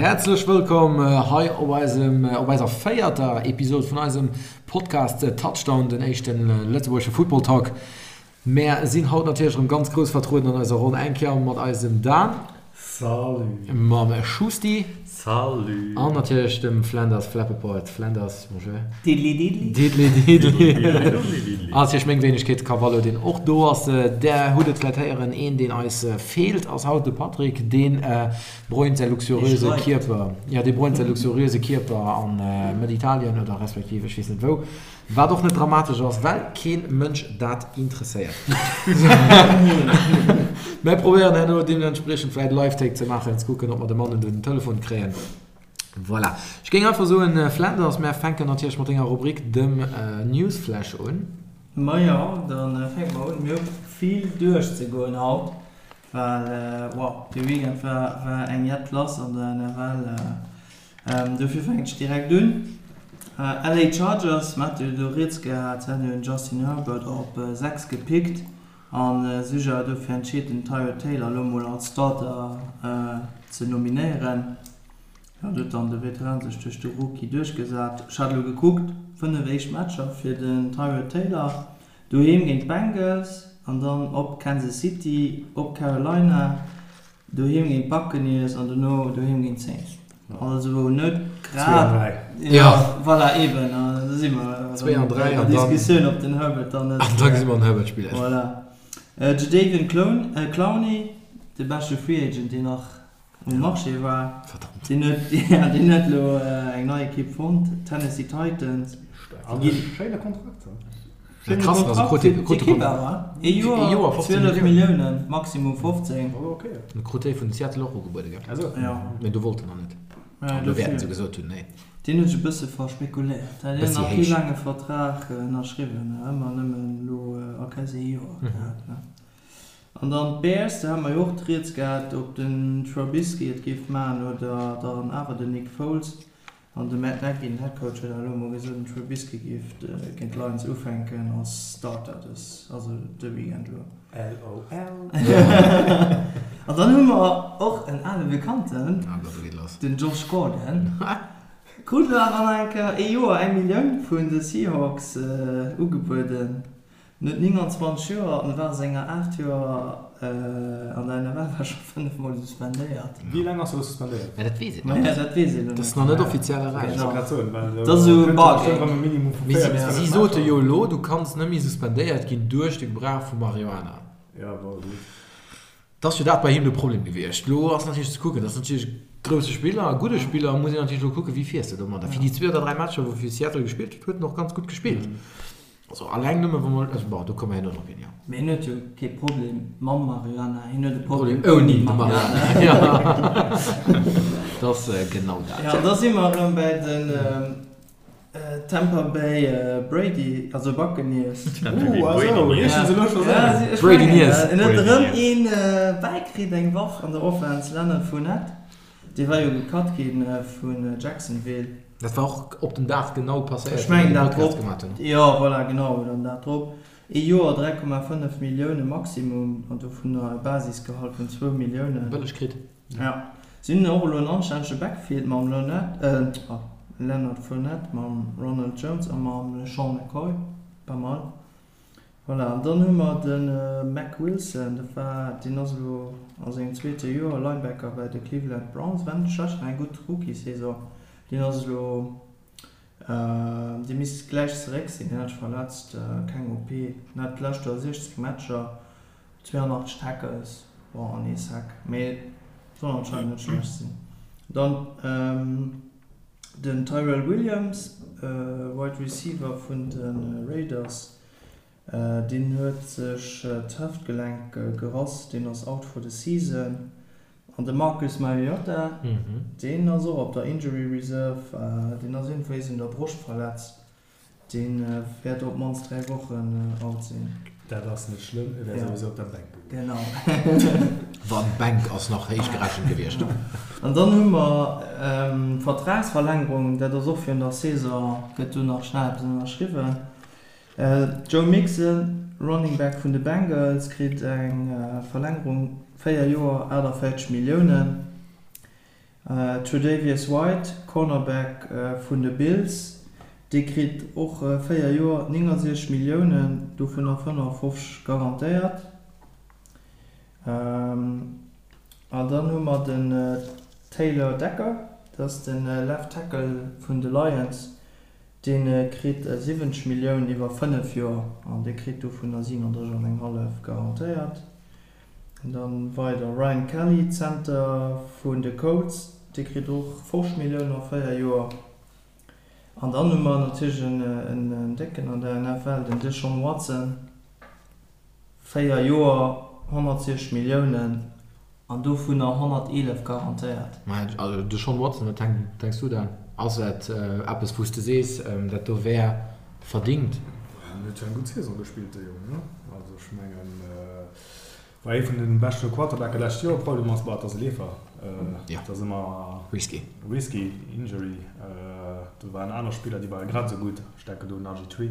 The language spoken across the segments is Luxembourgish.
Häerzlech wëllkomm hei op eisem, op eiser véierter Episod vun eisem Podcast Touchdown, den éischte lëtzebuergesche Football Talk. Mär sinn haut natierlech erëm ganz grouss vertrueden an eiser Ronn, eng Kéier mat eisem Dan. Salut. Mam Schusti. Salut. An natierlech dem Flanders Flappeport. Flanders, bonjour. Diddly diddly. Diddly diddly. An natierlech meng Wéinegkeet, Cavallo, deen och do ass. Där hutt et vläit héieren, een deen eis feelt ass haut de Patrick, dee bräunt säi luxuriöse Kierper, jo, dee bräunt säi luxuriöse Kierper an Mëtt-Italien oder respektiv ech weess net wou. Wat och net dramatesch ass, well keen Mënsch dat interesséiert. Mär probéieren herno deementspriechend vläit e Live-Take ze maachen, ze kucken, ob mer de Mann un den Telefon kréien. Voilà. Ech géing einfach soen, Flanders, mär fänken natierlech mat denger Rubrik, dem Newsflash un. Majo, da fänke mer un. Mir hu vill duerchzegoen haut, well wow, de Weekend war war eng jett lass an der NFL. Dofir fänken ech direkt un. LA Chargers, mer hate jo do rieds gehat, se haten jo den Justin Herbert op 6 gepickt a sech awer dofir entscheet den Tyrod Taylor elo mol als Starter ze nominéieren. Jo, do huet dann de Veteran sech duerch de Rookie duerchgesat. Ech hat elo gekuckt, 5 éischt Matcher fir den Tyrod Taylor, doheem géint d'Bengals an dann op Kansas City, op Carolina, Doheem géint d'Buccaneers an dono doheem géint d'Saints. Also net grad. Jo, voilà, eben. An do si mer erëm bei der Diskussioun, ob den Herbert dann net. An da gesi mer den Herbert spillen. Voilà. Jadeveon Clowney, de beschte Free Agent, deen nach um Marché war. Verdammt. Deen huet, ja, deen huet elo eng nei Ekipp fonnt, d'Tennessee Titans. An e schéine Kontrakt. Schéine Kontrakt fir d'Ekipp awer, ee Joer, 12 Milliounen, maximum 15. E krut dee vun Seattle och ugebuede gell? Jo. Mee do wollt en nach net. An do wäerten se gesot hunn, nee. Deen huet sech e bësse verspekuléiert. Hat hien nach kee laange Vertrag ënnerschriwwen, ëmmer nëmmen elo a quasi ee Joer gehat. An dann d'Bears, do hate mer jo och d'Rieds gehat, ob den Trubisky et géif maachen oder dann awer den Nick Foles. An de Matt Nagy, den Headcoach, huet awer elo emol gesot, den Trubisky géif géint d'Lions ufänken als Starter dës, also de Weekend elo. LOL. An dann hu mer och en ale Bekannten, den Josh Gordon, krut elo awer nach eng Kéier ee Joer eng Millioun vun de Seahawks ugebueden. En huet 29 Joer an war a senger 8 Joer an der NFL war scho 5 mol suspendéiert. Wéi laang ass e lo suspendéiert? Mä dat weess een nach net. Dat weess een lo net. Dat ass nach net offiziell erauss. Ech wollt grad soen, well Dat ass esou e Bargain. Mee si sote jo elo, du kanns net méi suspendéiert ginn duerch de Gebrauch vu Marihuana. Ja, bon, gutt. Et ass jo dat bei him de Problem gewiescht. Elo ass natierlech ze kucken, dat ass natierlech e grousse Spiller, e gudde Spiller, muss een natierlech elo kucken, wéi fiers de domadder. Fir déi zwee oder dräi Matcher, wou e fir Seattle gespillt huet, huet en och ganz gutt gespillt. Also alleng nëmme wa mer, also bon, do komme mer herno drop hin, jo. Mee hien huet jo kee Problem mam Marihuana, hien huet e Problem ouni de Marihuana. Jo, dat ass genau dat. Jo, an da si mer erëm bäi den Tampa Bay Brady, also Buccaneers. Uh, also, riichten se elo scho sou. Brady-Niers. En huet erëm een bäikritt, eng Waff an der Offense, Leonard Fournette. Dee war jo gecut gi vun Jacksonville. Dat war och op den Dag genau passéiert, wou mir de Podcast gemaat hunn. Jo, voilà, genau, den Dag drop. Ee Joer, 3,5 Millioune Maximum, an dovunner e Basisgehalt vun zwou Milliounen. Bëlleg kritt. Ja. Si hunn och elo en anstännege Backfield mam Leonard, Leonard Fournette, mam Ronald Jones a mam LeSean McCoy. Pas mal. Voilà, an dann hu mer de Mack Wilson, dat war, deen ass elo a sengem zweete Joer Linebacker bei de Cleveland Browns, war net schlecht, war eng gutt Rookie-Saison. Deen ass elo, dee misst gläich zeréck sinn, deen hat sech verletzt, keng OP, en hat d'lescht Joer 16 Matcher, 82 Tackles, bon, an ee Sack, mee soll anscheinend net schlecht sinn. Dann den Tyrell Williams, Wide Receiver vun de Raiders, Deen huet sech d'Hëftgelenk gerass, deen ass out for the season. An de Marcus Mariota, deen ass och op der Injury Reserve, deen ass iergendwéis un der Broscht verletzt, dee wäert op d'mannst 3 Wochen out sinn. Dat ass net schlëmm, e wär souwisou op der Bänk gewiescht. Genau. Wann, d'Bänk ass nach héich gerechent gewiescht. An dann hu mer d'Vertragsverlängerung, dat ass och virun der Saison, gëtt do nach schnell eppes ënnerschriwwen. Joe Mixon, Running Back vun de Bengals, kritt eng Verlängerung, 4 Joer, 48 Milliounen. Tre'Davious White, Cornerback vun de Bills, dee kritt och 4 Joer 69 Milliounen, dovunner 55 garantéiert. An dann hu mer den Taylor Decker, dat ass de Left Tackle vun de Lions, dee kritt 70 Milliounen iwwer 5 Joer an dee kritt dovunner 37 an eng hallef garantéiert. An dann weider Ryan Kelly, Center vun de Colts, dee kritt och 50 Milliounen a 4 Joer. An dann hu mer natierlech en Décken an der NFL, den Deshaun Watson, 4 Joer, 160 Milliounen an dovunner 111 garantéiert. Mä also Deshaun Watson, wat denks du dann? Ass dat eppes wou s de sees, dat do wär verdingt? En huet jo eng gutt Saison gespillt, de Jong, ne? Also ech mengen, war ee vun de beschte Quarterbacke lescht Joer. Problem ass, bah, et ass e Leefer, et ass ëmmer risky, risky, Injury. Do waren aner Spiller, déi ware grad esou gutt, ech denken do un RG3,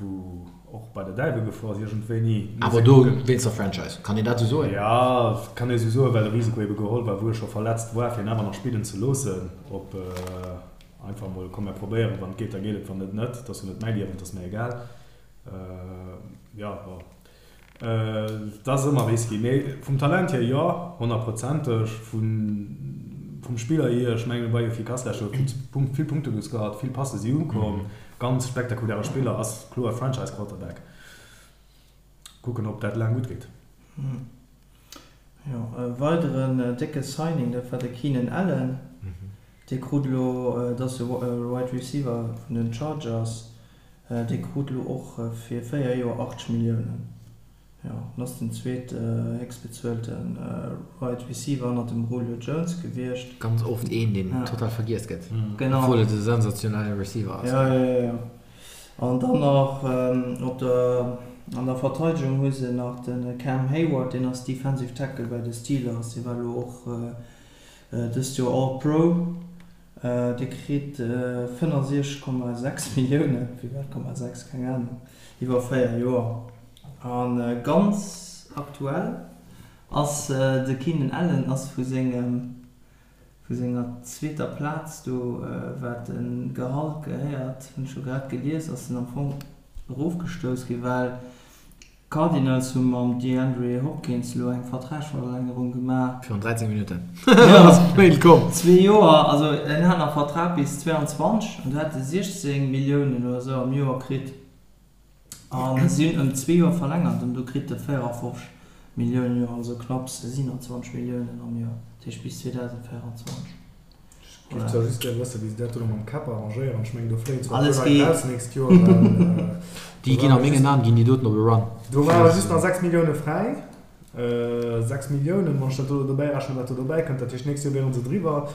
wou och bei der Däiwel gefuer ass iergendwéini. Awer do wéinst der Franchise, kann een dat esou soen? Jo, kann ee esou soen, well de Risiko ebe geholl war, wou e scho verletzt war, fir en awer nach spillen ze loossen, op einfach emol, komm mir probéieren, wann et geet, da geet et, wann net, net, et ass jo net mäi Liewen, et ass mir egal. Jo, bon. Et ass ëmmer risky, mee vum Talent hier jo, honnertprozenteg. Vum Spiller hier, ech mengen, e war jo efficace lescht Joer, vill Punkte gescored, vill Passe si ukomm, ganz spektakuläre Spiller, ass kloer Franchise-Quarterback. Kucken, ob dat laang gutt geet. Jo, e weideren décke Signing, dat war de Keenan Allen. Dee krut elo, dat ass e Wide Receiver vun den Chargers, Dee krut elo och fir 4 Joer 80 Milliounen. Jo, en ass den zweet héchstbezuelte Wide Receiver hannert dem Julio Jones gewiescht. Ganz oft een, deen total vergiess gëtt, obwuel et e sensationelle Receiver ass. Jo, jo, jo. An dann nach op der, an der Verteidegung hu se nach de Cam Heyward, deen ass Defensive Tackle bei de Steelers. Dee war elo och dëst Joer All-Pro. Dee kritt 65,6 Milliounen, firwat Komma 6, keng Anung, iwwer 4 Joer. A ganz aktuell ass de Keenan Allen ass vu sengem, vu senger zweeter Plaz do, wat de Gehalt gehéiert, hunn ech elo grad gelies, ass en am Fong erofgestouss ginn, well D'Cardinals hu mam DeAndre Hopkins elo eng Vertragsverlängerung gemaach. Virun 13 Minutten ass d'Mail komm. Zwee Joer, also en hat nach Vertrag bis 22 an do hat e 16 Milliounen oder esou am Joer kritt a si hunn ëm zwee Joer verlängert an do kritt e 54 Milliounen am Joer, also knapps 27 Milliounen am Joer, dat heescht bis 2024. Ech géif zwar just gär wëssen, wéi se dat do mam Cap arrangéieren. Ech mengen, do fléien zwar e puer Leit raus d'nächst Joer, well. Déi ginn a mengen Aen ginn déi doten op e Run. Do ware just nach 6 Millioune fräi. 6 Milliounen, wann ech dat do dobäi rechnen, wat do dobäi kënnt. Dat heescht, d'nächst Joer wiere se driwwer.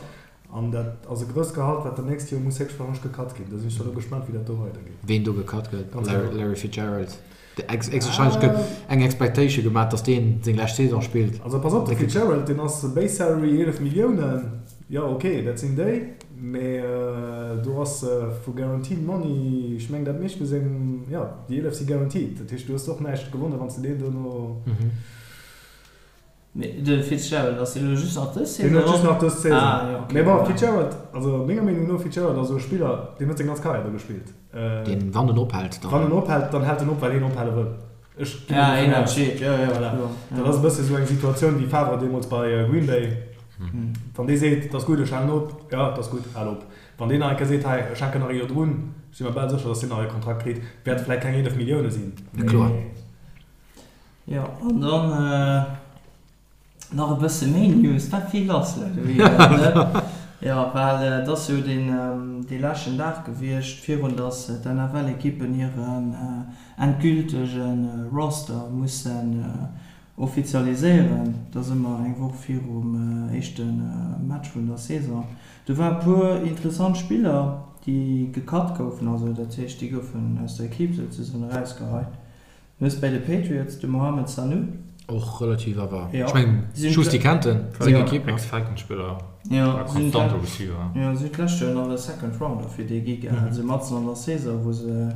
An dat ass e grousst Gehalt, wat dann d'nächst Joer muss héchstwahrscheinlech gecut ginn. Do sinn ech da lo gespaant, wéi dat do weidergeet. Ween do gecut gëtt? Larry Fitzgerald. Héchstwahrscheinlech gëtt eng Expectation gemaach, dass deen seng lescht Saison spillt. Also pass op, de Fitzgerald, deen ass Base Salary 11 Milliounen, jo ok, dat sinn déi, mee do ass vu Guaranteed Money, ech mengen dat meescht vu sengem, jo déi 11 si guaranteed, dat heescht du hues och näischt gewonnen, wann s de deen dono. Mee de Fitzgerald, ass deen elo just nach dës Saison? Deen huet just nach dës Saison. Ah, jo, okay. Mee bon, Fitzgerald, also menger Meenung no, Fitzgerald ass esou e Spiller, deen huet seng ganz Karriär do gespillt. Deen, wann en ophält, dann. Wann en ophält, dann hält en op, well hien ophale wëll. Ech ginn ja, dovun aus. Ja, jo, jo, voilà. Dat ass e bësse esou eng Situatioun wéi Favre deemools bei Green Bay. Wann dee seet, et ass gutt, ech halen op, jo, et ass gutt, hal op. Wann deen nach eng Kéier seet, hei, ech hänken nach e Joer drun, si mer bal sécher, datt deen nach e Kontrakt kritt. Wäerte vläicht keng 11 Millioune sinn, mee. Kloer. Jo, an dann nach e bësse méi News, war vill lass de Weekend, ne? Jo, well et ass jo deen dee leschten Dag gewiescht, virun datt d'NFL-Ekippen hiren endgültege Roster mussen offizialiséieren. Dat ass ëmmer eng Woch virum éischte Match vun der Saison. Do war e puer interessant Spiller, déi gecut goufen, also dat heescht, déi goufen aus der Ekipp souzesoen erausgeheit. Du hues bäi de Patriots de Mohamed Sanu. Och relativ awer, ech mengen Schusti kennt en, seng Ekipp. Ex-Falcons-Spiller, konstante Receiver. Jo, si hunn d'lescht Joer nach e Second Rounder fir dee gi gehat, esou matzen an der Saison, wou se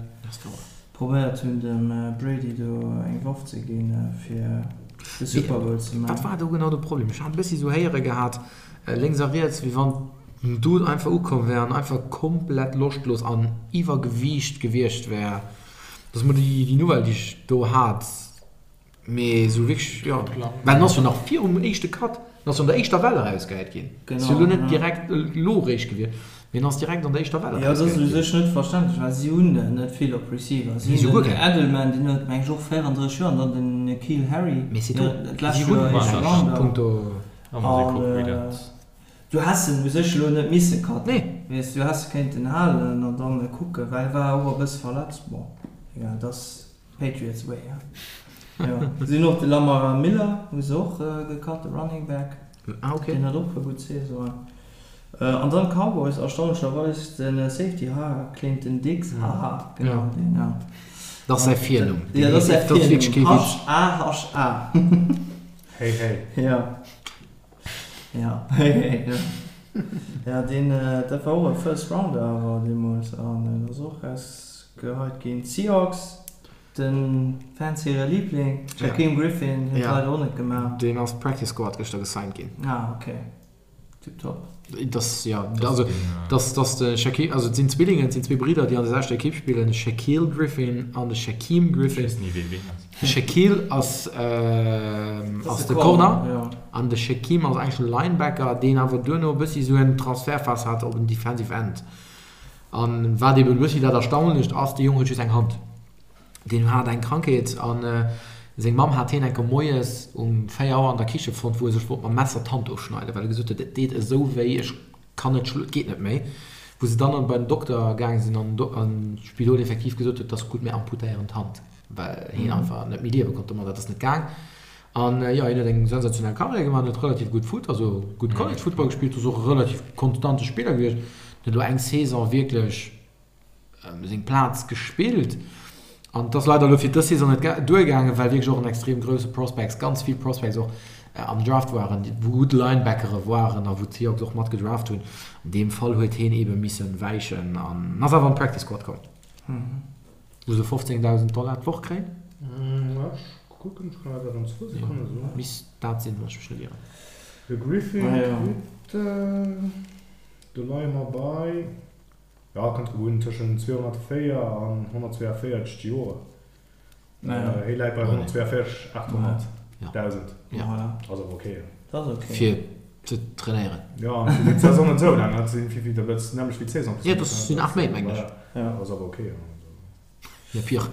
probéiert hunn dem Brady do eng Waff ze ginn, fir de Super Bowl ze maachen. Wat war do genau de Problem? Ech hat e bëssi esou héiere gehat. Lénks a riets, wéi wann den Dude einfach ukomm wär an einfach komplett loschtlos an Iwwergewiicht gewiescht wär. Dat ass mol déi Nouvelle, déi ech do hat. Mee esou wierklech, jo. Well en ass jo nach virum éischte Cut, en ass jo an der éischter Well erausgehäit ginn. Ass jo elo net direkt elo eréischt gewiescht, mee en ass direkt an der éischter Well erausgehäit ginn. Jo, dat ass u sech net verständlech, well si hunn net vill op Receiver. Si hunn den Edelman, deen huet, meng ech, och 34 Joer, an dann den N'Keal Harry, dat lescht Joer éischte Rounder. An du häss en u sech elo net misse cutten, weess, du häss e kéinten halen an dann kucken, well e war och e bësse verletzt. Bon, egal, et ass Patriots way, he. Jo, si hunn och de Lamar Miller hu se och gecut, de Running Back. Ah, okay. Deen hat och e puer gutt Saisonen. An dann d'Cowboys, erstaunlecherweis de Safety, ha, Clinton Dix, haha, genau deen, ja. Dat ass säi Virnumm. Jo, dat ass säi Virnumm, H-A-H-A. Hey hey. Ja. Ja, hey hey, ja. Ja, deen, dat war och e First Rounder awer deemools an en ass och rausgeheit ginn. D'Seahawks, de Fans hire Liebling, Shaquem Griffin, huet leider och net gemaach. Deen ass Practice Squad gëschter gesigned ginn. Ah, okay. Tiptop. Das, ja, also, das, das de Shaquille, also et sinn Zwillingen, et sinn zwee Bridder, déi an der selwechter Ekipp spillen, de Shaquille Griffin an de Shaquem Griffin. Ech weess ni, wee ween ass. De Shaquille ass, ass de Corner an de Shaquem ass eigentlech e Linebacker, deen awer duerno e bëssi esou en Transferphas hat op en Defensive End. An wat eben e bëssi dat Erstaunlecht ass, de Jong huet just eng Hand. Deen hat eng Krankheet an seng Mamm hat hien enker moies um 4 Auer an der Kiche fonnt, wou e sech wollt mam Messer d'Hand ofschneiden, well e gesot huet, et deet esou wéi, ech kann net, et geet net méi. Wou se dann bei den Dokter gaange sinn an d'Spidol effektiv gesot huet, et ass gutt, mir amputéieren d'Hand, well hien einfach net méi liewe konnt domat, dat ass net gaang. An jo, hien huet eng sensationell Karriär gemaach, huet relativ gutt Foot, also gutt College Football gespillt, ass och e relativ konstante Spiller gewiescht, huet elo eng Saison wierklech seng Plaz gespillt an et ass leider elo fir dës Saison net duergaangen, well wierklech och en extrem grousse Prospects, ganz vill Prospects och am Draft waren, wou gutt Linebackere waren a wou d'Seahawks och mat gedraft hunn. An deem Fall huet hien eebe misse wäichen an ass awer an d'Practice Squad komm, wou se 15.000 Dollar d'Woch kréien. Ech kucken, ech kann dat an zwou Sekonne soen. Misst dat sinn, wann ech mech net ieren. De Griffin kritt, do leie mer bei. Jo, kënnt drop un, tëschent 204 an 142 d'Joer. Hie läit bei 142 800 dausend. Ass awer ok. Dat ass ok. Fir ze trainéieren. Jo, an fir d'Saison net esou laang. Dat sinn wéi vill, dat ass d'nämmlecht wéi d'Saison. Jo, dat sinn 8 Méint, mengen ech. Ass awer ok. Jo, pire.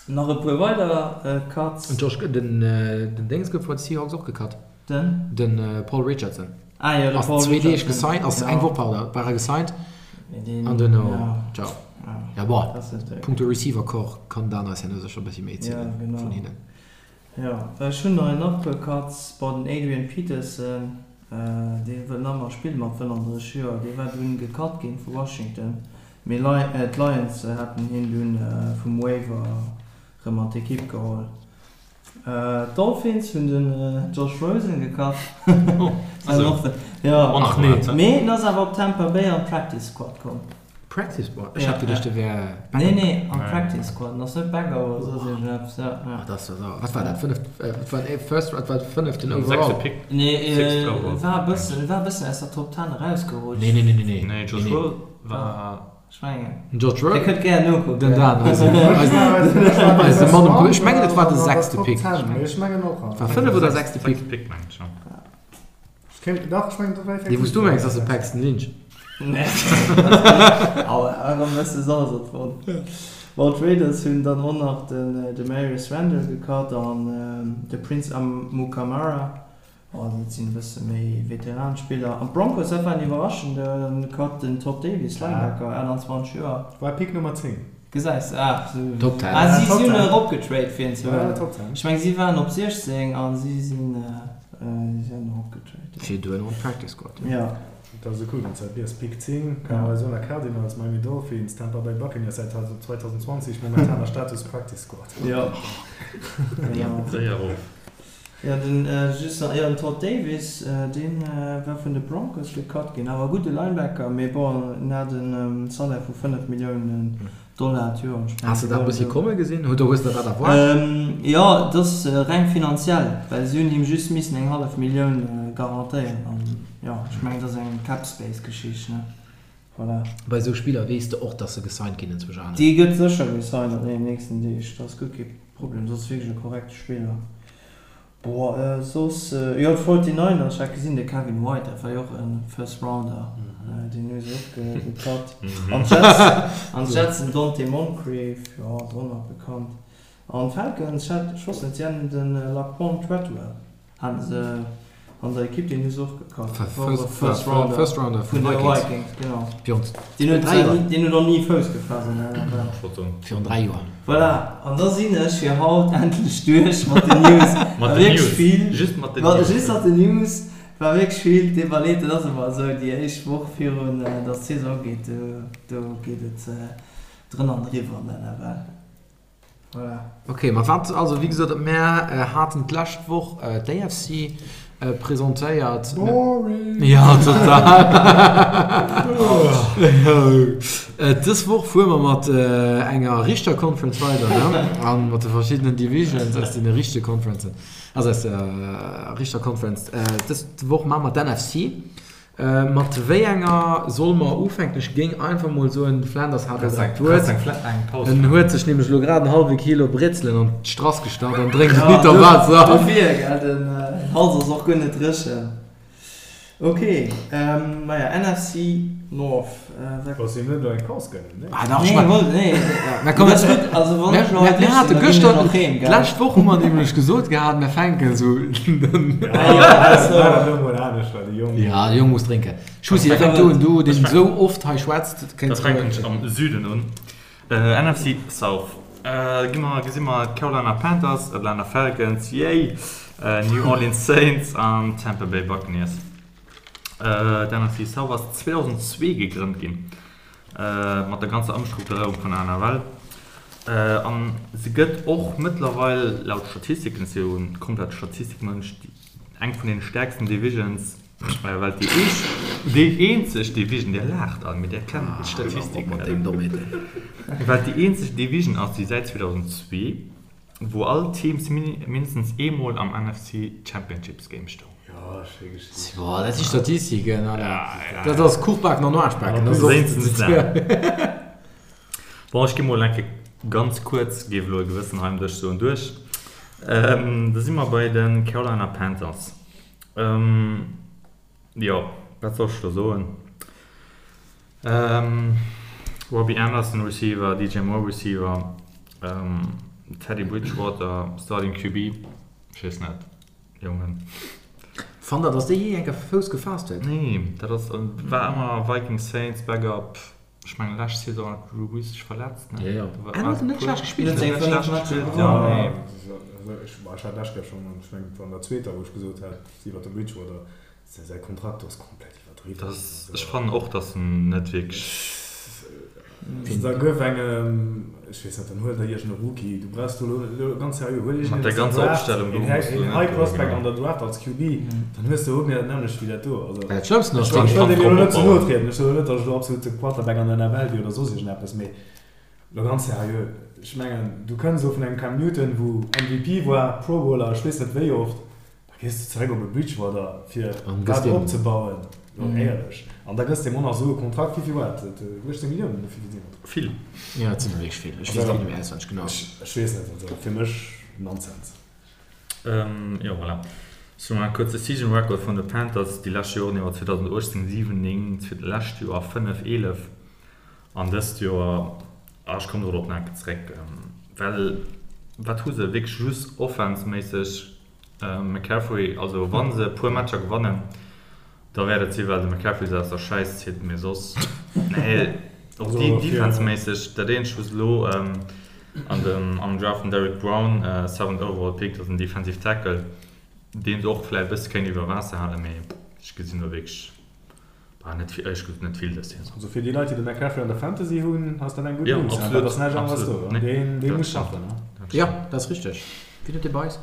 Nach e puer weider Cuts. Den Josh, den den Déngs gouf bei de Seahawks och gecut. Den? Den Paul Richardson. Ah jo, de Paul Richardson. Ass zwee Deeg gesigned, ass eng Woch, pardon, war e gesigned. An duerno, ciao. Ja bon, punkto Receiver Corps kann Dan eis herno sécher e bëssi méi erzielen vun hinnen. Jo, ech hunn nach en puer Cuts. Bon, den Adrian Peterson, dee wëll nach ëmmer spille mat 35 Joer, dee war dunn gecut ginn vu Washington. Mee d'Lions haten hien dunn vum Waiver rëm an d'Ekipp geholl. D'Dolphins hunn den Josh Rosen gecut. Mee en ass awer op Tampa Bay an d'Practice Squad komm. Practice Squad? Ech hat geduecht, de wär Backup. Nee, nee, am Practice Squad. En ass net Backup oder soss iergendeppes, ja. Ah, dat ass jo sauer. Wat war dat? Fënneft, wat war den First, wat war de fënneften Overall? Sechste Pick. Nee, e war e bëssen, e war e bëssen aus der Top Ten erausgerutscht. Nee, nee, nee, nee, nee. Nee, Josh Rosen war. Ech mengen. Den Josh Rosen? Dir kënnt gär nokucken. Den Dan, eisen, eisen, eise Mann um. Ech mengen, et war de sechste Pick. Ech mengen och. War fënnef oder sechste Pick? Sechste Pick, mengen ech, ja. Dee wou s du mengs ass de Paxton Lynch. Aua, erëm bësse Salz an d'Wonn. Bon, d'Raiders hunn dann och nach den Damarious Randall gecut an de Prince Amukamara. Bon, dat sinn e bësse méi Veteran-Spiller. An d'Broncos, dat war en iwwerraschende Cut, den Todd Davis, Linebacker, 28 Joer. War Pick Nummer 10. Gesäis de, ah, sou. Top 10. Ah, si hunn eropgetrade fir en ze huelen. Ech meng, si waren op 16 a si sinn. Si hunn eropgetrade, jo. Fir duerno an d'Practice Squad, jo. Jo. Dat ass esou cool, wann s de dat liest, Pick 10, Arizona Cardinals, Miami Dolphins, Tampa Bay Buccaneers säit 2020, momentaner Status Practice Squad. Jo. Genau. Séier erof. Jo, den just nach, jo, den Todd Davis, dee war vun de Broncos gecut ginn, awer e gudde Linebacker, mee bon, en hat e Salaire vu 5 Milliounen Dollar d'Joer. Ech mengen, Has de dat e bëssi komme gesinn? Oder hues de dat erwaart? Jo, et ass reng finanziell, well si hunn him just missen eng hallef Millioun garantéieren an jo, ech mengen, et ass eng Cap-Space-Geschicht, ne? Voilà. Bei esou Spiller weess de och, dass se gesigned ginn enzwousch anescht. Dee gëtt sécher gesigned an deenen nächsten Deeg, dat ass guer kee Problem, dat ass wierklech e korrekte Spiller. Boah, soss, jo d'Forty Niners, ech hat gesinn, de Kevin White, dat war jo och e First Rounder, deen hu se och gecut. An d'Jets, an d'Jets den Donte Moncrief, jo ass och nach bekannt. An d'Falcons, ech hat, ech wosst net, si haten de Laquan Treadwell. Haten se an der Ekipp, deen hu se och gekafft. First Rounder vun de Vikings, genau. Deen huet zwar ni, deen huet och ni Fouss gefaasst an der NFL. Virun 3 Joer. Voilà, an da sinn ech fir haut endlech duerch mat den News. Mat den News, just mat den News. Just mat den News, war wierklech vill. D'Iwwerleet, dat ass ëmmer esou, déi éischt Woch virun datt d'Saison ugeet, do, do geet et drënn an driwwer an der NFL. Voilà. Ok, ma wat, also wéi gesot, mär haten d'lescht Woch d'AFC presentéiert. Boring! Ja, total! Dës Woch fuere mer mat enger richter Conference weider, ne? A mat de verschiddenen Divisions aus deene richtege Conferencen, also aus der richter Conference. Dës Woch maache mer d'NFC. Mat wéi enger solle mer ufänken? Ech géing einfach mol soen, de Flanders hat elo grad d'Wuert. En huet sech nämlech elo grad en hallwe Kilo Bretzelen an d'Strass gestach an drénkt en Liter Waasser. Dofir, gell, den Hals ass och guer net dréchen. Ok, maja, NFC North. Bass him net elo eng Paus gönnen, nee? Ah dach, ech mein, nee, nee, komm, dat ass gutt. Also wann ech elo hei duerch sinn, da ginn ech och heem, gell? D'lescht Woch hu mer nämlech gesot gehat, mir fänken esou. Ja, de Jong muss drénken. Schussi, da fänk du un, du deen esou oft hei schwätzt, kéints. Da fänken ech am Süden un. NFC South. Gi mer, gesi mer d'Carolina Panthers, Atlanta Falcons, yay, New Orleans Saints an Tampa Bay Buccaneers. D'NFC South ass 2002 gegrënnt ginn, mat der ganzer Ëmstrukturéierung vun der NFL. An se gëtt och mëttlerweil, laut Statistiken, ech si jo e komplette Statistikmënsch, eng vun den stäerksten Divisions, well et déi eescht, déi eenzeg Division, Dir laacht all, mee Dir kennt d'Statistiken net, well et déi eenzeg Division ass, déi säit 2002, wou all Teams mindestens eemol am NFC Championships Game stoung. Jo, schéi Geschicht. Boah, dat si Statistiken, Alter. Dat ass Kuch baken an Aarsch baken. Dat ass och. Bon, ech gi mol eng Kéier ganz kuerz, géif elo e gewëssen hei um Dësch soen, duerch. Da si mer bei de Carolina Panthers. Jo, wat soll ech do soen? Robbie Anderson, Receiver, DJ Moore, Receiver, Teddy Bridgewater, Starting QB, ech weess net, Jongen. Fannt der, dass dee jee eng Kéier Fouss gefaasst huet? Nee, dat ass, war ëmmer Vikings, Saints, Backup. Ech mengen lescht Saison hat Drew Brees sech verletzt, ne? Jo, jo. En huet net schlecht gespillt. Net schlecht gespillt, jo, nee. Ech hat lescht Kéier schonn, ech mengen et war an der zweeter, wou ech gesot hat iwwer de Bridgewater, säi Kontrakt ass komplett iwwerdriwwen. Dat, ech fannen och, datt en net wierklech. Da gouf engem, ech weess net, dann huel der iergend e Rookie, du brauchs do elo, ganz seriö, huel iergend een aus der Draft, een High Prospect an der Draft als QB, dann hues de och net dat nämmlecht wéi dat do. Also, Dat Schlëmmsten ass, ech wëll deem elo net ze no trieden, ech soen elo net, datt ech elo absolut de Quarterback an der NFL wier oder soss iergendeppes, mee elo ganz seriö, ech mengen, du kënns elo vun engem Cam Newton, wou MVP war, Pro Bowler, ech weess net wéi oft, Da gees de zeréck op e Bridgewater fir dat opzebauen, lo éierlech. An da gëss de em och nach esou e Kontrakt, wéi vill war dat? 18 Milliounen oder wéi vill sinn dat? Vill. Jo, et sinn der wierklech vill. Ech weess et net méi auswenneg genau. Ech weess net, also fir mech Nonsens. Jo, voilà. Sou nach e kuerze Season Record vun de Panthers déi lescht Joren iwwer, 2018 7, 9, lescht Joer 5, 11 an dëst Joer, ah ech kommen dorop nach eng Kéier zeréck, well wat hu se wierklech just offense-méisseg McCaffrey, also wann se e puer Matcher gewannen, da wäert et si well de McCaffrey se aus der Schäiss zitt, mee soss, nee, och defenseméisseg, dat eenzegt wou se elo an dem am Draft den Derrick Brown, seventh overall pick, dat ass en defensive tackle, deen se och vläicht e bësse kéint iwwer Waasser halen, mee ech gesinn do wierklech net vill, éierlech gesot net vill dës Saison. Also fir déi Leit déi de McCaffrey an der Fantasy hunn, ass dat eng gutt News, dat ass näischt aneres do, deen muss schaffen. Jo, dat ass richteg. Wien huet dee bei eis?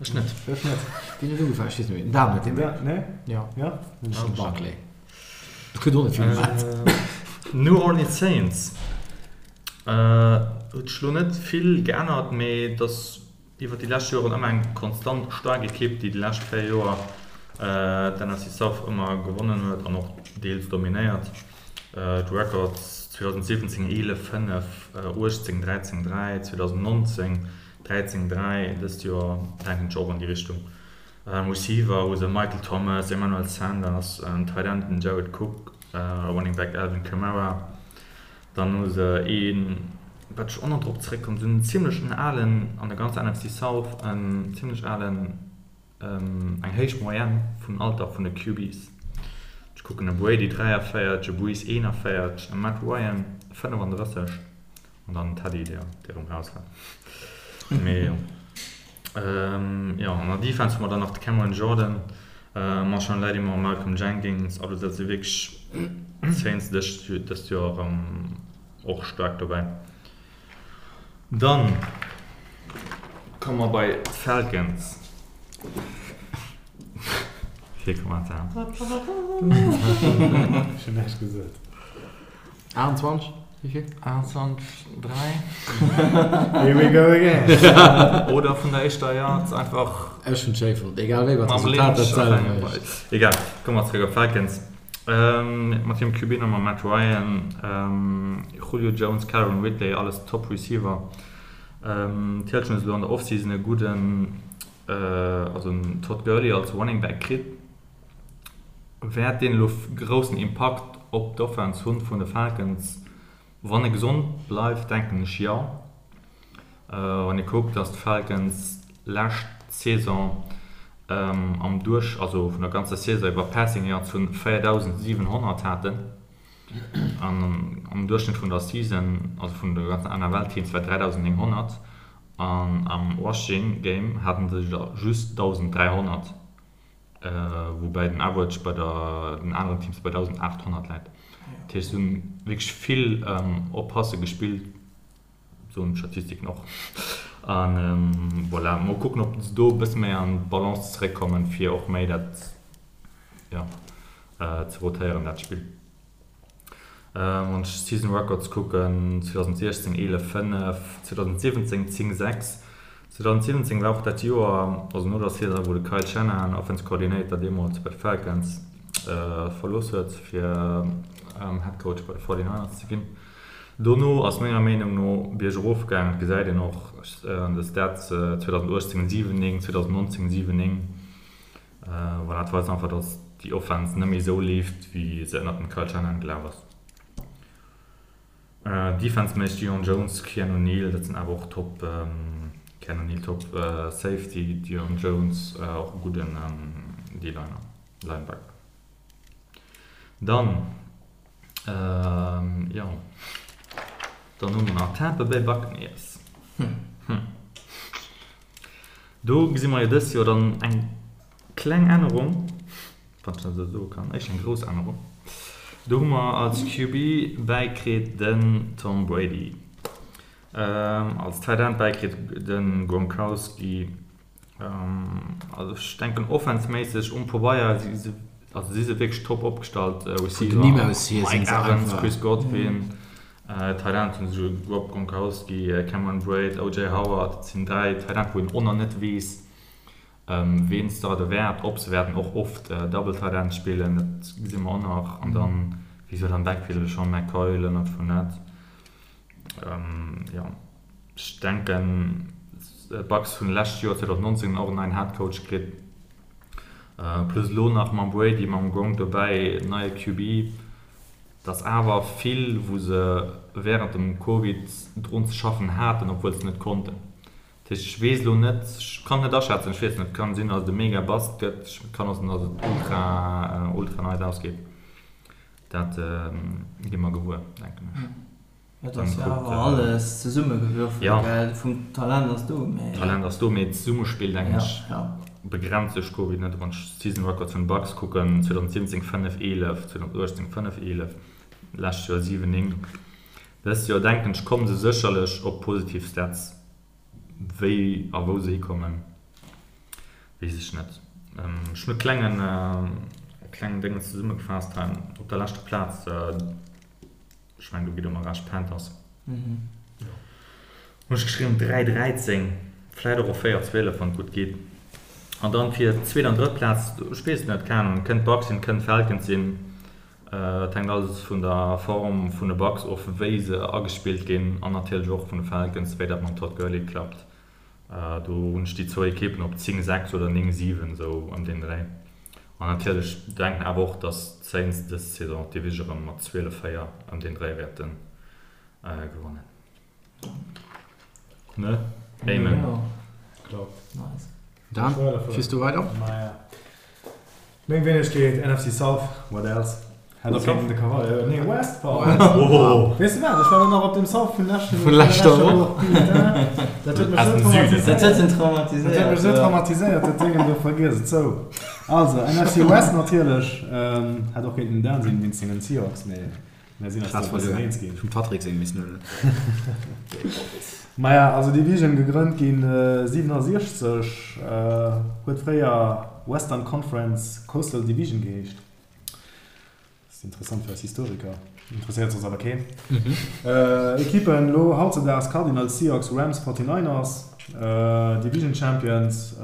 Ech net. Ech net. Wien huet ugefaangen? Ech weess net méi. Den Dan huet deen. Nee? Jo. Jo? Ech hunn Barkley. Ech huet och net vill gemat. New Orleans Saints huet sech lo net vill geännert, mee et ass iwwer déi lescht Joren ëmmer eng konstant staark Ekipp, déi déi lescht 4 Joer d'NFC South ëmmer gewonnen huet an och deels dominéiert. D'Records, 2017 11, 5, 18 13, 3, 2019 13, 3, dëst Joer denken ech och an déi Richtung. Receiver hu se Michael Thomas, Emmanuel Sanders, Tight End den Jared Cook, Running Back Alvin Kamara. Dann hu se een, wat ech och nach drop zeréckkomm, se hunn en zimmlech en alen, an der ganzer NFC South, en zimmlech alen, eng héich Moyenne vum Alter vun de QBs. Ech kucken e Brady 43, e Brees 41, e Matt Ryan 35. An dann Teddy, dee erëm raus war. Mee jo. Jo, an der Defense hu mer dann nach de Cameron Jordan, Marshon Lattimore, Malcolm Jenkins. Also dat si wierklech d'Saints dëst Joer erëm och staark dobäi. Dann komme mer bei d'Falcons. Kee Kommentar. Ech hunn näischt gesot. 28, wéi vill? 28, 3. Here we go again. Oder vun der éischter Yards einfach. Ech hunn schéi fonnt, egal wéi, wat d'Resultat dat selwecht. Egal, komme mer zeréck op Falcons. Mat hirem QB Nummer Matt Ryan, Julio Jones, Calvin Ridley, alles Top Receiver. D'Hilton huet elo an der Offseason e gudden, also en Todd Gurley als Running Back kritt. Wäert deen elo groussen Impakt op d'Offense hunn vun de Falcons? Wann e gesond bleift, denken ech jo. Wann ee kuckt, datt d'Falcons lescht Saison am Duerch, also vun der ganzer Saison iwwer Passing Yards vun 4.700 haten an am Duerchschnëtt vun der Season, also vun de ganzen NFL-Teams war 3.900 an am Rushing Game haten se der just 1.300. Woubäi den Average bei der den aneren Teams bei 1.800 läit. Dat heescht, se hunn wierklech vill op Passe gespillt, soen d'Statistiken och. A voilà, mol kucken, ob se do e bësse méi an d'Balance zeréckkommen, fir och méi dat, jo, ze rotéieren, dat Spill. Wann ech d'Season Records kucken, 2016 11, 5, 2017 10, 6. 2017 war och dat Joer, also no der Saison, wou de Kyle Shanahan, Offense Coordinator deemools bei de Falcons, verlooss huet, fir Head Coach bei de 49ers ze ginn. Dono ass menger Meenung no biergerof gaangen, dat gesäit een och an de Stats, 2018 7, 9, 2019 7, 9. Voilà, et weist einfach, dass déi Offense net méi esou leeft, wéi se ënnert dem Kyle Shanahan gelaf ass. Defense-méisseg Deion Jones, Keanu Neal, dat sinn awer och top, Keanu Neal top Safety, Deion Jones och e gudden D-Liner, Linebacker. Dann, jo, dann hu mer nach Tampa Bay Buccaneers. Do gesi mer jo dëst Joer dann eng kleng Ännerung, wann ech dat esou soe kann, éischter eng grouss Ännerung. Do hu mer als QB bäikritt den Tom Brady, als Tight End bäikritt de Gronkowski. Also ech denken offense-méisseg um Pabeier si se, also si se wierklech top opgestallt. Receiver Mike Evans, Chris Godwin. Tight End hunn se Rob Gronkowski, Cameron Brate, OJ Howard, dat sinn 3 Tight End wou een och nach net weess ween starten wäert, ob se wäerten och oft Double Tight End spillen, dat gesi mer och nach. An dann wéi gesot am Backfield LeSean McCoy, Leonard Fournette. Jo ech denken d'Bucs hunn lescht Joer 2019 och en neien Head Coach kritt, plus elo nach mam Brady, mam Gronk dobäi, neie QB. Et ass awer vill, wou se wärend dem Covid drun ze schaffen haten, obwuel se net konnten. Dat heescht, ech weess elo net, ech kann et net aschätzen, ech weess net, et kann sinn, datt et e mega Bust gëtt, et kann och sinn, datt et ultra, ultra nice ausgeet. Dat gi mer gewuer, denken ech. Et ass jo awer alles zesummegewürfelt, gell? Vum Talent ass do, mee. Talent ass do, mee d'Zesummespill, denken ech, begrenzt duerch Covid net. Wann ech d'Season Records vun de Bucks kucken, 2017 5, 11, 2018 5, 11, lescht Joer 7, 9. Dëst Joer, denken ech, komme se sécherlech op positiv Stats. Wéi a wou se hikommen. Weess ech net. Ech hunn e klengen, e klengen Déngens zesummegefaasst hei op der leschter Plaz. Ech mengen, do gitt Der mer Recht, Panthers. Hunn ech geschriwwen 3, 13, vläit och op 4, 12, wann et gutt geet. An dann fir d'zweet an drëtt Plaz, ech weess et net, keng Ahnung, kënnt d'Bucks sinn, kënnt d'Falcons sinn. Et hänkt alles vun der Form vun de Bucks of, wéi se agespillt ginn an natierlech och vun de Falcons, wéi dat mam Todd Gurley klappt. Do hunn ech déi zwou Ekippen op 10, 6 oder 9, 7, esou ëm deen Dréi. An natierlech denken awer och, datt d'Saints dës Saison d'Division erëm mat 12, 4 ëm deen Dréi wäerte gewannen. Ne? Amen. Dan, fiers du weider? Meng Wéinegkeet, NFC South, what else? Hätt och kéinten de Cavalier, nee West, pardon. Weess de wat, ech war elo nach op dem South vun leschten, vun leschter Woch. Putain, dat huet mech esou traumatiséiert. Dat huet en traumatiséiert. Dat huet mech esou traumatiséiert, dat Déngen do, vergiess et. Sou, also NFC West natierlech, hätt och kéinten den Dan sinn wéinst sengen Seahawks, mee Mir sinn eis do e bëssen eens ginn. Vum Patrick seng missen huelen. Maja, also Division gegrënnt ginn 67, huet fréier Western Conference Coastal Division geheescht. Ass interessant fir eis Historiker, interesséiert soss awer keen. Ekippen elo hautzedaags, Cardinals, Seahawks, Rams, 49ers. Division Champions,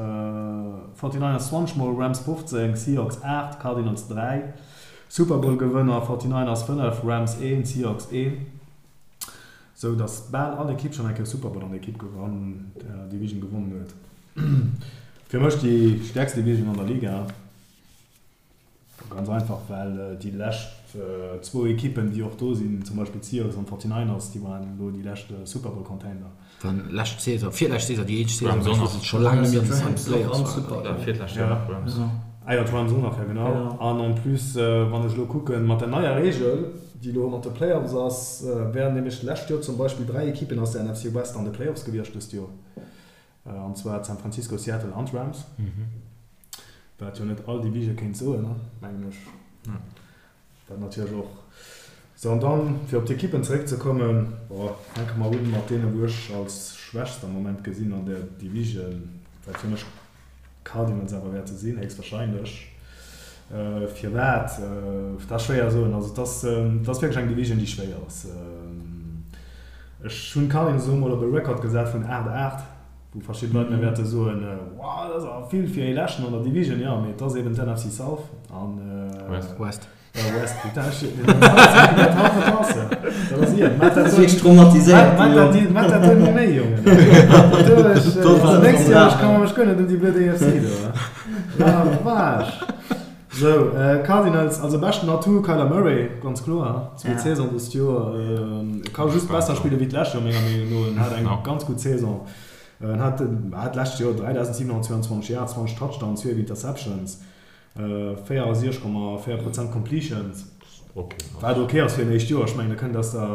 49ers 20 mol, Rams 15, Seahawks 8, Cardinals 3. Super Bowl Gewënner, 49ers 5, Rams 1, Seahawks 1. Sou dass bal all Ekipp schonn eng Kéier Super Bowl an der Ekipp an der Division gewonnen huet. Fir mech déi stäerkst Division an der Liga. Ganz einfach well déi lescht zwou Ekippen déi och do sinn, zum Beispill d'Seahawks an d'Forty-Niners, déi waren elo déi lescht Super Bowl Contender. Dann lescht Saison, virlescht Saison, déi eenzeg Saison, wou se scho laang net méi an de Playoffs waren. Ah jo, d'Rams och nach, jo genau. An en plus, wann ech elo kucken, mat der neier Reegel, déi elo mat de Playoffs ass, wären nämlech d'lescht Joer zum Beispill 3 Ekippen aus der NFC West an de Playoffs gewiescht dëst Joer, an zwar d'San Francisco, Seattle an d'Rams, wat jo net all Division kéint soen, mengen ech. Dat natierlech och. Sou, an dann, fir op d'Ekippen zeréckzekommen, bon, fänke mer un mat deene wou ech als schwächst am Moment gesinn an där Division, wat fir mech d'Cardinals awer wäerte sinn, héchstwahrscheinlech. Firwat? Dat ass schwéier soen. Also et ass, et ass wierklech eng Division, déi schwéier ass. Ech hunn d'Cardinals elo mol op e Record gesat vun 8, 8. Wou verschidde Leit mir wäerte soen, Wow, dat ass awer vill fir ee Leschten an der Division. Jo, mee et ass eben d'NFC South an. West. West. West, putain, ech dat haut verpassen. Dat ass iert. Maat dat wierklech traumatiséiert. Maat dat, maat dat do net méi, Jongen. Dat nächst Joer, ech kann mech guer net ëm déi blöd AFC do. La vache. Sou, Cardinals, also beschten Atout Kyler Murray, ganz kloer. Zweet Saison dëst Joer. E ka just besser spille wéi d'lescht Joer, menger Meenung no. En hat eng ganz gutt Saison. En hat hat d'lescht Joer 3.722 Yards, 20 Touchdowns, 12 Interceptions, 64,4 Prozent Completions. Wat ok ass fir en éischt Joer. Ech mengen, e kënnt aus der,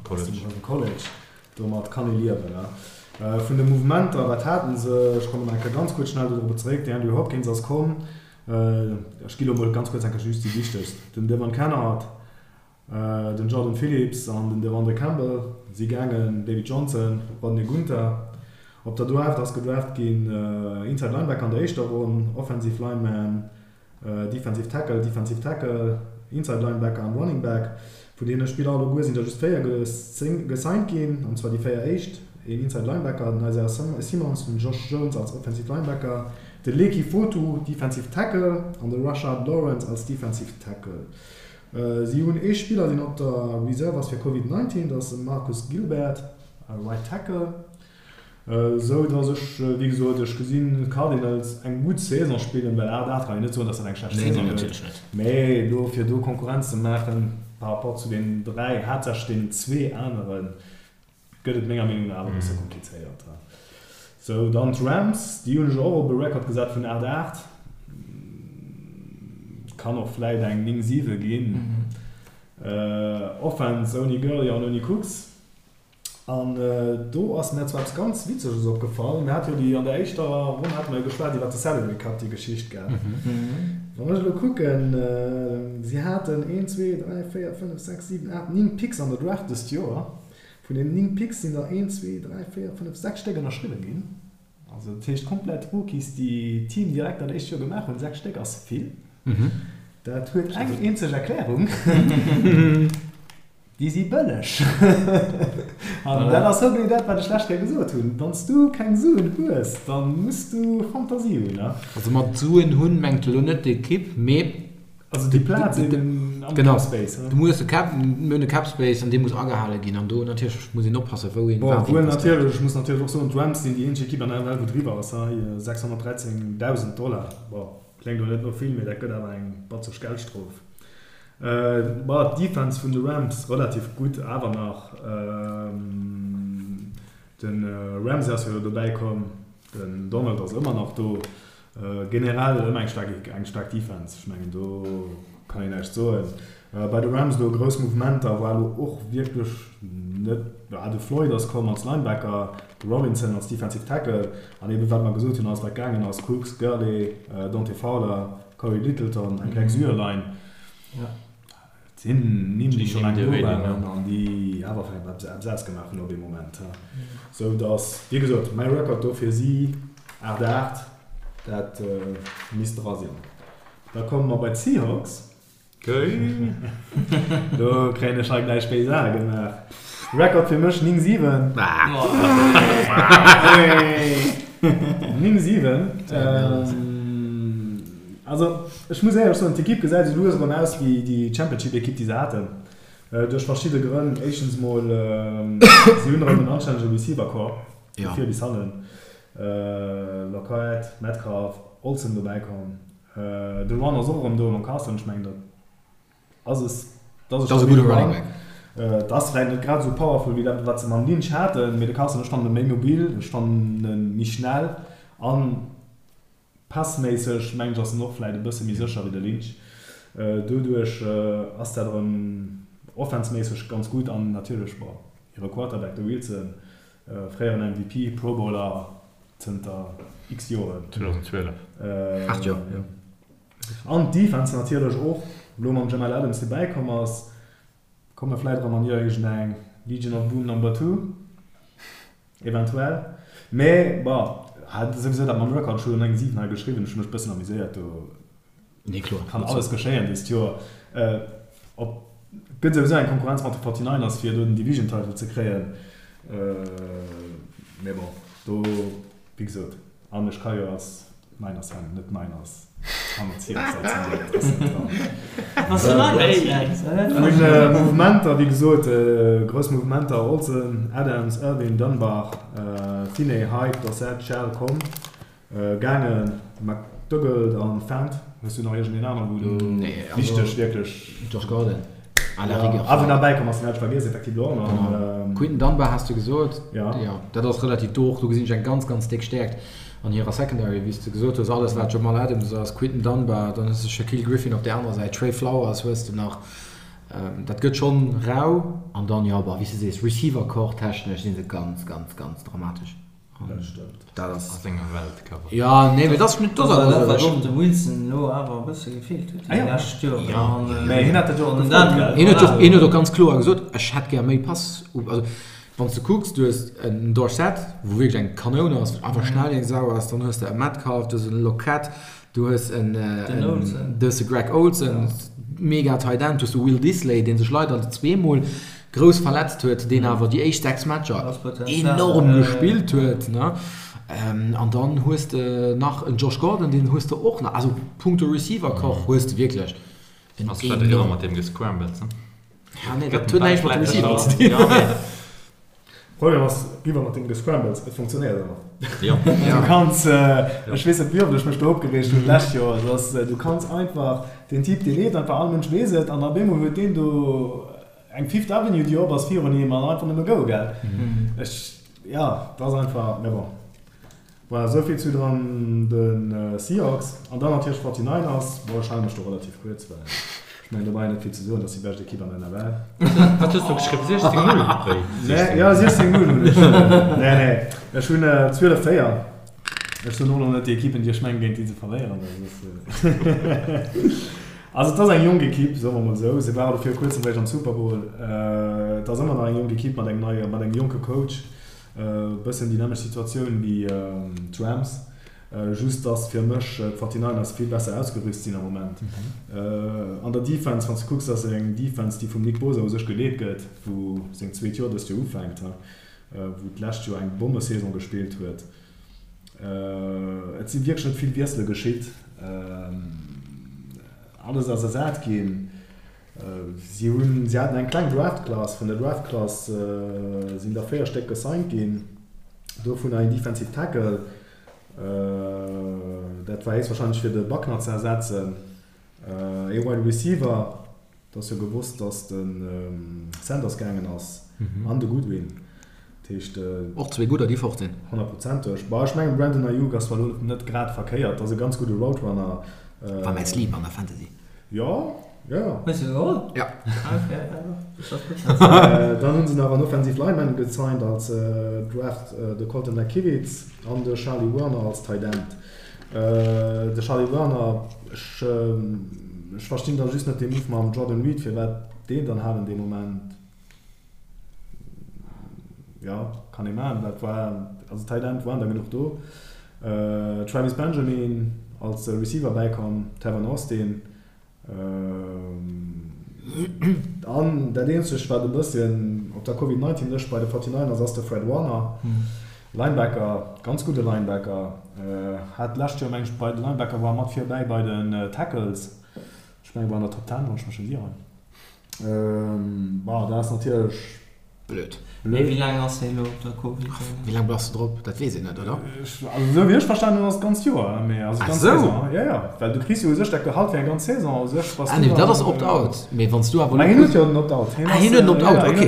aus dem College. Domat kann ee liewen. Vun de Mouvementer, wat haten se? Ech kommen nach eng Kéier ganz kuerz schnell dodrop zeréck. De Andrew Hopkins ass komm. Ech gi lo mol ganz kuerz eng Kéier just déi wichtegst. Den Devon Kennard, den Jordan Phillips an den Devondre Campbell si gaangen, David Johnson, Rodney Gunter. Op der Draft ass gedraft ginn Inside Linebacker an der éischter Ronn, Offensive Lineman, Defensive Tackle, Defensive Tackle, Inside Linebacker an Running Back. Vun deene Spiller alleguer sinn der just 4 gesigned ginn, an zwar déi 4 éischt, een Inside Linebacker, den Isaiah Simmons, den Josh Jones als Offensive Linebacker, de Leki Fotu, Defensive Tackle, an de Rashard Lawrence als Defensive Tackle. Si hunn ee Spiller, deen op der Reserve ass fir Covid 19, dat ass de Marcus Gilbert, Right Tackle. Esou dass ech, wéi gesot, ech gesinn d'Cardinals eng gutt Saison spillen, well 8, 8 kann een net soen, dass dat eng schlecht Saison gëtt, mä elo fir do Konkurrenz ze maachen par rapport zu deenen 3, haaptsächlech deenen zwee aneren, gëtt et menger Meenung no awer e bësse komplizéiert. Sou, dann d'Rams, déi hunn ech och op e Record gesat vun 8, 8, kann och vläit eng 9, 7 ginn. Offense ouni Gurley an ouni Cooks. An do ass mär zwar eppes ganz Witzeges opgefall. Mir hate jo déi, an der éischter Ronn hate mer jo geschwat iwwert de Salary Cut, déi Geschicht, gell? Wann ech elo kucken, si haten een, zwee, dräi, véier, fënnef, sechs, siwen, aacht, néng Picks an der Draft dëst Joer. Vun deenen néng Picks sinn der een, zwee, dräi, véier, fënnef, sechs Stéck ënnerschriwwen ginn. Also dat heescht komplett Rookies, déi d'Team direkt dat éischt Joer gemaach hunn. 6 Stéck ass vill. Dat huet eng eenzeg Erklärung, Déi si bëlleg. An dat ass hogenee dat, wat ech d'lescht Kéier gesot hunn, Wann s du keng Suen hues, da muss du Fantasie hunn. Also mat Suen hunn mengt elo net d'Ekipp, mee. Also déi Plaz eben am Cap Space. Genau, du muss e Cap, mir hunn e Cap Space an dee muss agehale ginn an do natierlech muss een oppassen, wou een wat investéiert. Bon, wuel natierlech, ech muss natierlech och soen, d'Rams sinn déi eenzeg Ekipp an der NFL, wou driwwer ass, hei 613.000 Dollar. Bon, kléngt elo net no vill, mee dat gëtt awer eng batzeg Geldstrof. Bon, d'Defense vun de Rams relativ gutt awer nach. De Ramsey ass jo elo dobäi komm, den Donald ass ëmmer nach do. Generell ëmmer eng staark eng staark Defense, ech mengen do kann een näischt soen. Bei de Rams elo grouss Mouvementer war elo och wierklech net, ja de Floyd ass komm als Linebacker, de Robinson als Defensive Tackle an eben wat mer gesot hunn, alles wat gaangen ass, Cooks, Gurley, Dante Fowler, Cory Littleton, eng kleng Süerline. Et sinn Nimm, déi scho laang do waren an déi awer vläicht eppes eppes ausgemaach hunn op ee Moment. Sou datt, wéi gesot, mäi Record do fir si 8, 8, dat misst dra sinn. Da komme mer bei d'Seahawks. Do kréien ech hei gläich béis Ae gemaach. Record fir mech 9, 7. 9, 7. Also, ech muss éierlech soen, d'Ekipp gesäit esou lues erëm aus wéi déi Championship-Ekipp, déi se haten. Duerch verschidde Grënn. Éischtens mol, si hunn erëm en anstännege Receiver-Corps, vu vir bis hannen. Lockett, Metcalf, Olsen dobäi komm. De Run ass och erëm do mam Carson. Ech mengen, dat ass e, dat ass e stabile Run. Et ass vläicht net grad esou powerful wéi dat, wat se mam Lynch haten, mee de Carson, ech fannen e méi mobil, ech fannen e méi schnell an Passméisseg mengen ech ass en och vläit e bësse méi sécher wéi de Lynch. Doduerch ass dat erëm offenseméisseg ganz gutt an natierlech, bon, hire Quarterback, de Wilson, fréieren MVP, Pro Bowler zënter x Joren. 2012. 8 Joer, jo. An d'Defense natierlech och, elo mam Jamal Adams, dee bäikomm ass, komme vläit erëm an iergendeng Legion of Boom Number Two. Eventuell. Mee bon, hat souwisou dat mam Record, ech hu jo eng 7 hei geschriwwen, ech hu mech bëssen amuséiert, do Nee, kloer. kann alles geschéien dëst Joer. Op gëtt souwisou eng Konkurrenz mat de 49ers fir do den Division Title ze kréien. Mee bon, do wéi gesot, an ech ka jo als Niners Fan, net Niners Hanner Seahawks als Fan, dat ass net dran. Bass du Niners Fan? Vun Mouvementer, wéi gesot, grouss Mouvementer, Olsen, Adams, Irvin, Dunbar, Finney, Hyde, Dorsett, Shell komm, gaangen, McDougald an Fant. Hues du nach iergendeen anere wou do wichteg wierklech. Josh Gordon. À la rigueur. Ah, wou nach bäikomm ass, den hat ech vergiess, effektiv elo och nach. Quinton Dunbar has du gesot. Jo. Dat ass relativ do och. Do gesinn ech eng ganz, ganz déck Stäerkt. An hirer Secondary, wéi s de gesot hues, alles wat Jamal Adams ass, Quinton Dunbar, dann hues de Shaquille Griffin op där anerer Säit, Trey Flowers hues de nach, dat gëtt schonn rau. An dann, jo, bon, wéi s de sees, Receiver-Corps technesch si se ganz, ganz, ganz dramatesch. Dat stëmmt. Dat ass. A senger Welt, Cover. Jo, nee, mee dat ass net, dat ass awer dat, wat och dem Wilson elo awer e bësse gefeelt huet déi lescht Joren. Jo. Mä hien hat dat jo och gefrot, gell? Hien huet jo, hien huet och ganz kloer gesot, ech hätt gär méi Pass, also Wann s de kucks, du hues en Dorsett, wou wierklech eng Kanoun ass, einfach schnell wéi eng Sau ass, dann hues de e Metcalf, du hues en Lockett, du hues en du hues de Greg Olsen, mega Tight End, du hues de Will Dissly, dee sech leider zweemol grouss verletzt huet, deen awer déi éischt 6 Matcher enorm gespillt huet, ne? An dann hues de nach en Josh Gordon, deen hues de och nach. Also punkto Receiver-Corps hues de wierklech en Ass vläicht ëmmer mat deem Gescrambles, ne? Ja, nee, dat huet näischt mat dem Receiver ze dinn. Problem ass, riwwer mat dem Gescrambles, et funktionéiert ëmmer. Jo. Du kanns, ech weess net wéi oft ech mech do opgereegt hunn d'lescht Joer, et ass, du kanns einfach, den Typ dee leeft einfach, all Mënsch weess et, an op eemol huet deen do eng Fifth Avenue déi op ass virun him an einfach nëmme go, gell. Ech, jo, et ass einfach, mä bon. Voilà, esou vill zu dann de Seahawks. An dann natierlech d'Forty-Niners. Bon, ech hale mech do relativ kuerz, well ech mengen, do brauch een net vill ze soen, dat ass déi bescht Ekipp an der NFL. Wat hues du geschriwwen? 16, 0? Wéi? Nee, jo, 16, 0 hunn ech. Nee, nee, ech hunn 12, 4. Ech soen och elo net déi Ekippen, déi ech mengen, géint déi se verléieren, well soss. Also, et ass eng jonk Ekipp, soe mer emol esou. Se ware elo viru kuerzem réischt am Super Bowl. Et ass ëmmer nach eng jonk Ekipp mat engem neie, mat engem jonke Coach. Bëssen déi nämmlecht Situatioun wéi d'Rams, just dass fir mech d'Forty-Niners vill besser ausgerüst sinn am Moment. An der Defense, wann s de kucks, ass et eng Defense, déi vum Nick Bosa u sech geleet gëtt, wou seng zweet Joer dëst Joer ufänkt, wou d'lescht Joer eng Bommesaison gespillt huet. Et si wierklech net vill Wiessele geschitt, alles ass ersat ginn. Si hunn, si haten eng kleng Draft-Class. Vun der Draft-Class sinn der 4 Stéck gesigned ginn, dovunner een Defensive Tackle, dat war héchstwahrscheinlech fir de Buckner ze ersetzen, ee Wide Receiver, et ass jo gewosst, datt de Sanders gaangen ass, an de Goodwin. Dat heescht. Och zwee gudder, déi fort sinn. Honnertprozenteg. Bah, ech mengen, Brandon Aiyuk ass zwar elo net grad verkéiert, ass e ganz gudde Route Runner. War mäi Sleeper an der Fantasy. Jo, jo, jo. Hues du geholl? Ja. Ah, okay, ja, das ass gutt. Dann hunn se nach en Offensive Lineman gesigned als Draft, de Colton McKivitz an de Charlie Woerner als Tight End. De Charlie Woerner, ech, ech verstinn da just net dee Move mam Jordan Reed, firwat deen dann halen dee Moment. Jo, kann ee maachen. Dat war, also Tight End waren der genuch do. Travis Benjamin als Receiver bäikomm, Tavon Austin. An dat eenzegt, wat e bësschen op der Covid 19 Lëscht bei de 49ers ass, de Fred Warner, Linebacker, ganz gudde Linebacker. Hat d'lescht Joer, meng ech, bei de Linebacker war mat virbäi bei den Tackles. Ech menge war an der Top 10, wann ech mech net ieren. Bon, dat ass natierlech blöd. Mee wéi laang ass hien elo op der Covid? Wéi laang bass de drop? Dat weess een net, oder? Also esou wéi ech verstanen hunn, ass et d'ganzt Joer. Mee also d'ganz Saison. Jo, jo, well du kriss jo u sech dat Gehalt fir eng ganz Saison u sech. Bass du dann. Ah nee, dat ass Opt-out. Mee wann s du awer elo. Mä hien huet jo den Opt-out. Ah, hien huet den Opt-out, ok.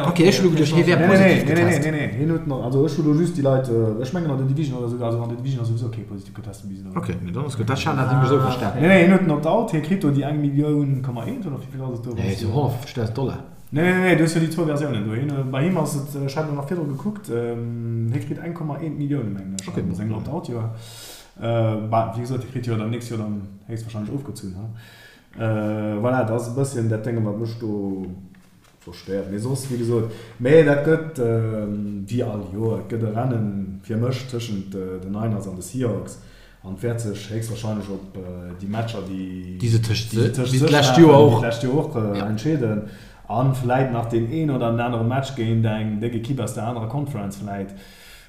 Ok, ech hu elo geduecht, hie wär positiv getest. Nee, nee, nee, nee, hien huet den, also ech hu elo just déi Leit, ech mengen an der Division oder esou, also an der Division ass souwisou kee positiv getest. Ok, nee, dann ass gutt. Dat hat ech nämlech esou verstan. Nee, nee, hien huet den Opt-out, hie kritt do déi eng Millioun Komma eent oder wéi vill ass et do? Nee, esou 150.000 Dollar. Nee, nee, nee, du hues jo déi zwou Versiounen do. Hien, bei him ass et, ech hat elo nach virdru gekuckt, hie kritt 1,1 Millioune mengen ech an sengem Opt-out-Joer. Bah, wéi gesot, hie kritt jo dann d'nächst Joer dann héchstwahrscheinlech ofgezunn, ha. Voilà, dat ass e bësschen dat Dénge wat mech do Verstéiert, mee soss, wéi gesot, mee dat gëtt wéi all Joer, et gëtt e Rennen fir mech tëschent den Niners an de Seahawks an et wäert sech héchstwahrscheinlech op déi Matcher, déi se tëscht sech maachen, wéi d'lescht Joer och, entscheeden a vläit nach deen een oder den anere Match géint eng déck Ekipp aus der anerer Conference vläit,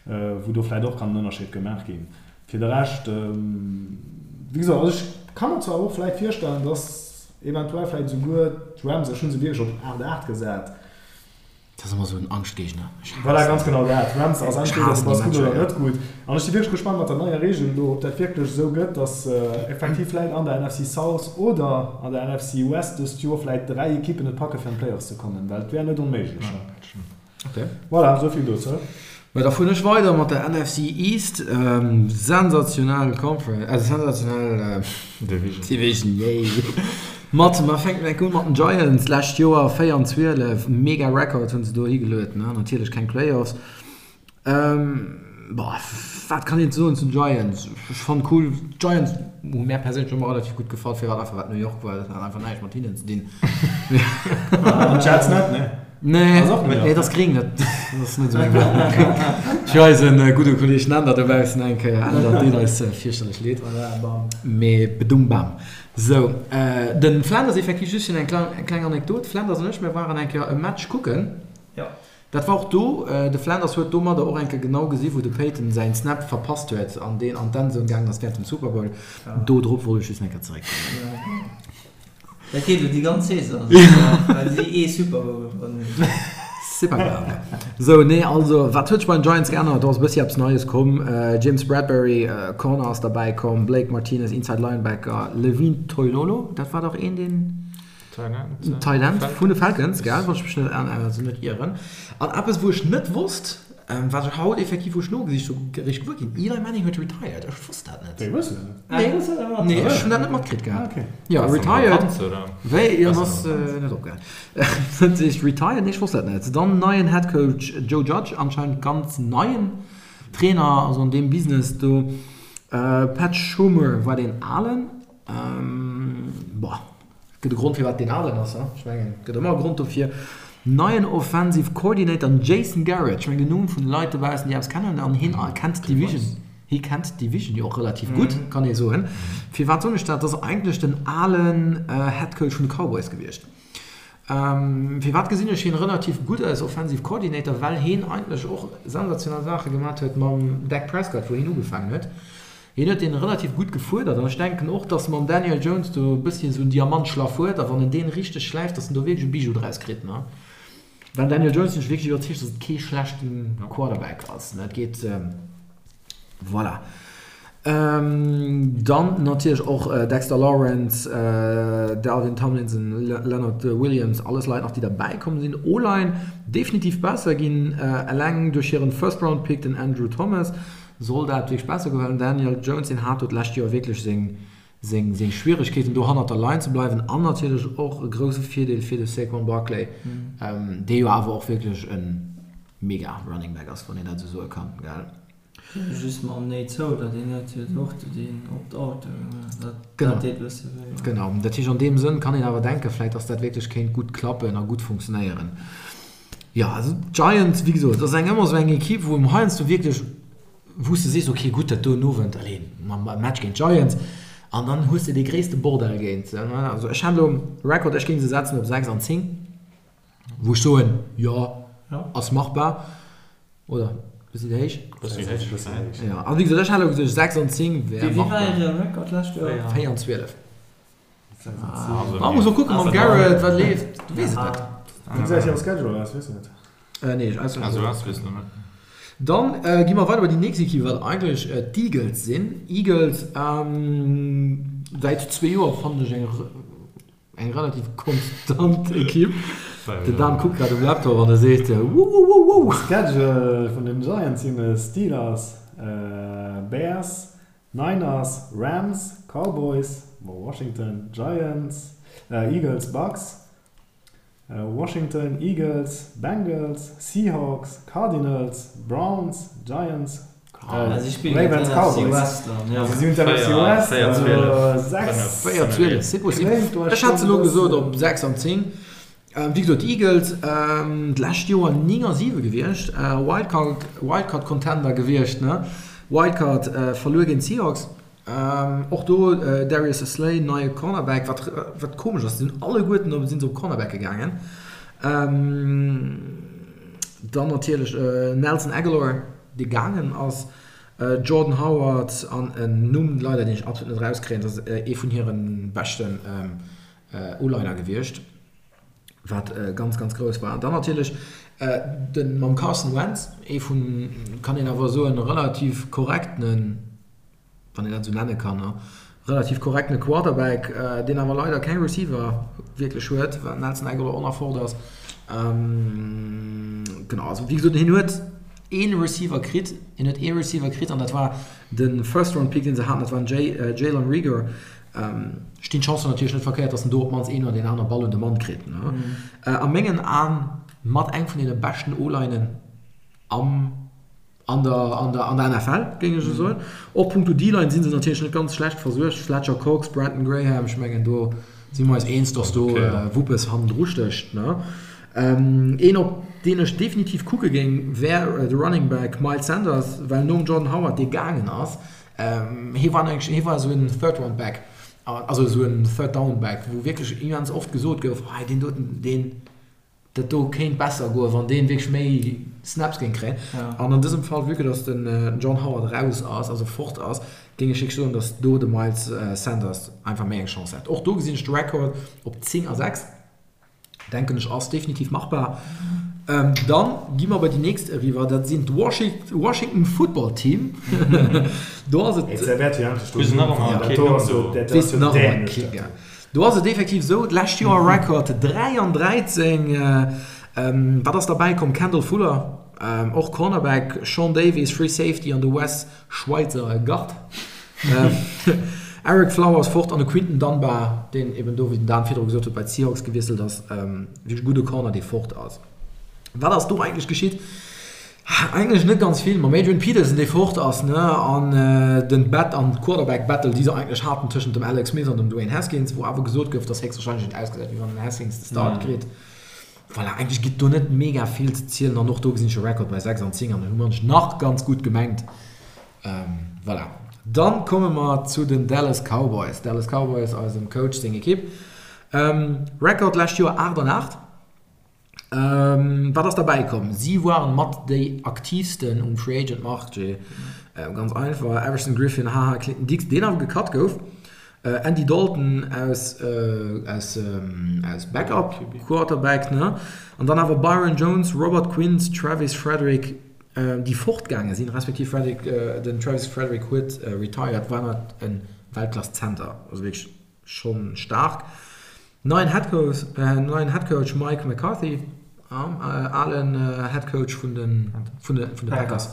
wou do vläit och kann en Ënnerscheed gemaach ginn. Fir de Rescht, wéi gesot, also ech ka mer zwar och vläit virstellen, dass Eventuell vläit esouguer d'Rams, ech hu se wierklech op 8, 8 gesat. Dat ass ëmmer esou en Angschtgéigner. Ech haassen Voilà, ganz genau dat. D'Rams ass entweder du bass gutt oder net gutt. An ech si wierklech gespannt mat der neier Reegel elo, ob dat wierklech esou gëtt, datt effektiv vläit an der NFC South oder an der NFC West dëst Joer vläit 3 Ekippen et packe fir an d'Playoffs ze kommen, well et wär net onméiglech. Okay. Voilà, esou vill dozou. Mä da fueren ech weider mat der NFC East. Sensationell Conference, also sensationell Division. Division, yay. Mat, mer fänken enk un mat den Giants. Lescht Joer 4 an 12, mega Record hunn se do higeluet, ne? Natierlech keng Playoffs. Boah, wat kann een soen zu den Giants? Ech fannen cool, d'Giants hu mär perséinlech ëmmer relativ gutt gefall, firwat einfach wat New York war, dat hat einfach näischt mat hinnen ze dinn. An d'Jets net, ne? Nee, nee, dat ass gring, dat ass net esou meng Welt. Fir eisen gudde Kolleeg Nender dobaussen eng Kéier, Änder, deet eis fierchterlech leed, mee bedum bam. Sou, den Flanders effektiv, just fir eng kleng Anekdot, Flanders an ech, mir waren eng Kéier e Match kucken. Dat war och do, de Flanders huet domadder och eng Kéier genau gesi wou de Peyton säin Snap verpasst huet an deen an d'Endzone gaangen ass während dem Super Bowl. Do drop wollt ech just eng Kéier zeréckkommen. Dat geet elo déi ganz Saison esou, well si ee Super Bowl gewonnen hunn. C'est pas grave. Sou, nee, also wat huet sech bei den Giants geännert? Do ass e bëssi eppes Neies komm. James Bradberry, Corner, ass derbäi komm, Blake Martinez, Inside Linebacker, Levine Toilolo, dat war dach een deen. Tight End vun de Falcons, gell, wann ech mech net, also net ieren. An eppes, wou ech net wosst, wat ech haut effektiv, wou ech nogesicht hu, eréischt gewuer ginn, Eli Manning huet retired. Ech wosst dat net. Wéi, wosst du dat net? Nee, nee, ech hunn dat net matkritt gehat. Jo, retired. Wéi, jo, en ass net opgehal. Dat heescht retired, nee, ech wosst dat net. Dann neien Head Coach Joe Judge, anscheinend ganz neien Trainer, also an deem Business do. Pat Shurmur war deen alen. Boah, et gëtt e Grond firwat deen alen ass, ech mengen et gëtt ëmmer e Grond dofir. Neien Offensive Coordinator, den Jason Garrett. Ech mengen den Numm vun de Leit dobaussen, déi eppes kennen, an hien kennt d'Division, hie kennt d'Division jo och relativ gutt, kann ee soen. Firwat soen ech dat? Dat ass eigentlech den alen Head Coach vun de Cowboys gewiescht. Firwat gesinn ech hien relativ gutt als Offensive Coordinator? Well hien eigentlech och sensationell Saache gemat huet mam Dak Prescott, wou hien ugefaangen huet. Hien huet deen relativ gutt gefuerdert an ech denken och, dass mam Daniel Jones do e bësschen esou en Diamantschlaff huet a wann en deen richteg schläift, dass en do wierklech e Bijou draus kritt, ne? Well Daniel Jones sinn ech wierklech iwwerzeegt, dass et kee schlechten Quarterback ass, ne? Et geet, voilà. Dann natierlech och Dexter Lawrence, Dalvin Tomlinson, Leonard Williams, alles Leit nach déi derbäi komm sinn. O-Line definitiv besser ginn, eleng duerch hiren First Round Pick, den Andrew Thomas. Soll dat wierklech besser goen? Well den Daniel Jones, deen hat do d'lescht Joer wierklech seng, seng, seng Schwieregkeeten, do hannert der Line ze bleiwen. An natierlech och e grousse Virdeel fir de Saquon Barkley, dee jo awer och wierklech e mega Running Back ass, wann een dat esou soe kann, gell? Just mam Nate Solder, deen huet jo och deen Opt-out, dat, dat deet e bësse wéi. Genau, dat heescht an deem Sënn kann een awer denken, vläicht, datt dat wierklech kéint gutt klappen a gutt funktionéieren. Jo, also d'Giants, wéi gesot, dat ass eng ëmmer esou eng Ekipp, wou em heiansdo wierklech, wou s de sees, ok gutt, dat do en Owend, allez, mam Match géint d'Giants, an dann hues de dee gréisste Bordell géint se. Also ech hat elo Record, ech géing se setzen op 6 an 10, wou ech soen, jo, ass machbar, oder? Bëssi héich? Bëssi héich. Jo, also wéi gesot, ech hat elo gesot 6 an 10 wär machbar. Wéi war hire Record d'lescht Joer? 4 an 12. Man muss och kucken mam Garrett wat leeft, du weess et net. Wéi gesäit hire Schedule aus, weess de dat? Nee, ech auswendig net. Dann gi mer weider bei déi nächst Equipe, wat eigentlech d'Eagles sinn. Eagles säit zwee Joer fannen ech eng eng relativ konstant Equipe. Den Dan kuckt grad um Laptop an e seet wouwouwouwou. Schedule vun den Giants sinn Steelers, Bears, Niners, Rams, Cowboys, Washington, Giants, Eagles, Bucks, Washington, Eagles, Bengals, Seahawks, Cardinals, Browns, Giants, Ravens, Cowboys. Also si hunn d'NFC West, also 6, 4, 12, c'est possible. Ech hat se elo gesot op 6 an 10. Wéi gesot, d'Eagles d'lescht Joer 9 a 7 gewiescht, Wildcard, Wildcard Contender gewiescht, ne? Wildcard verluer géint d'Seahawks. Och do Darius Slay, neie Cornerback, wat wat komesch ass, sinn alleguerten op sinn se op Cornerbacke gaangen. Dann natierlech Nelson Agholor, dee gaangen ass, Jordan Howard an en Numm leider, deen ech absolut net erauskréien, dat ass ee vun hire beschten O-Liner gewiescht, wat ganz, ganz grouss war. Dann natierlech de mam Carson Wentz, ee vun, kann een awer soen, relativ korrektenen, wann een dat esou nenne kann, relativ korrektene Quarterback, deen awer leider keng Receiver wierklech huet, well Nelson Agholor och nach fort ass. Genau, also wéi gesot, hien huet ee Receiver kritt, hien huet ee Receiver kritt an dat war de First-Round-Pick, dee se haten, dat war den Jalen Reagor. Stinn d'Chancen natierlech net verkéiert, dass en do op d'mannst een oder deen aner Ball un de Mann kritt. A mengen Aen mat eng vun deene beschten O-Linen am, an der, an der, an der NFL, géing ech esou soen. Och punkto D-Line si se natierlech net ganz schlecht versuergt, Fletcher Cox, Brandon Graham, ech mengen do si mer eis eens, dass do Wuppes hannendru stécht. Een op deen ech definitiv kucke géing, wär de Running Back Miles Sanders, well nom Jordan Howard, dee gaangen ass, Hie war eng, hie war esou en Third Round Back, also esou en Third Down Back, wou wierklech immens oft gesot gouf, hei deen doten, deen, dat do kéint besser goen, wann deen wierklech méi Snaps géing kréien. An an dësem Fall, vue que dass den John Howard raus ass, also fort ass, géing ech wierklech soen, dass do de Miles Sanders einfach méi eng Chance hätt. Och do gesinn ech de Record op 10 a 6. Denken ech ass definitiv machbar. Dann gi mer bei déi nächst eriwwer, dat sinn d'Washington Football Team. Do ass et Do ass et effektiv esou, d'lescht Joer Record 3 an 13. Wat ass derbäi komm? Kendall Fuller, och Cornerback, Sean Davis, Free Safety an de Wes Schweizer Gard. Ereck Flowers fort an de Quinton Dunbar, deen eben do, wéi den Dan virdru gesot huet, bei d'Seahawks gewiesselt ass. Wierklech e gudde Corner, dee fort ass. Wat ass do eigentlech geschitt? Eigentlech net ganz vill. Mam Adrian Peterson, dee fort ass, ne, an den Bat an d'Quarterback Battle, déi se eigentlech haten tëschent dem Alex Smith an dem Dwayne Haskins, wou awer gesot gouf, dass héchstwahrscheinlech et ausgesäit, wéi wann den Haskins de Start kritt. Voilà, eigentlech gëtt do net mega vill ze zielen an och do gesinn ech e Record bei 6 an 10 an hu mer nach ganz gutt gemengt. Voilà, dann komme mer zu den Dallas Cowboys. Dallas Cowboys, eisem Coach seng Ekipp. Record lescht Joer 8 an 8. Wat ass derbäi komm? Si waren mat déi aktiivsten um Free Agent Marché. Ganz einfach, Everson Griffen, haha, Clinton Dix, deen awer gecut gouf. Andy Dalton aus aus aus Backup Quarterback ne an dann awer Byron Jones, Robert Quinn, Travis Frederick déi fortgaange sinn, respektiv Frederick den Travis Frederick huet retired, war nach en Weltklass Center, also wierklech schonn staark. Neien Headcoach, neien Headcoach Mike McCarthy, alen Headcoach vun de vun de vun de Packers,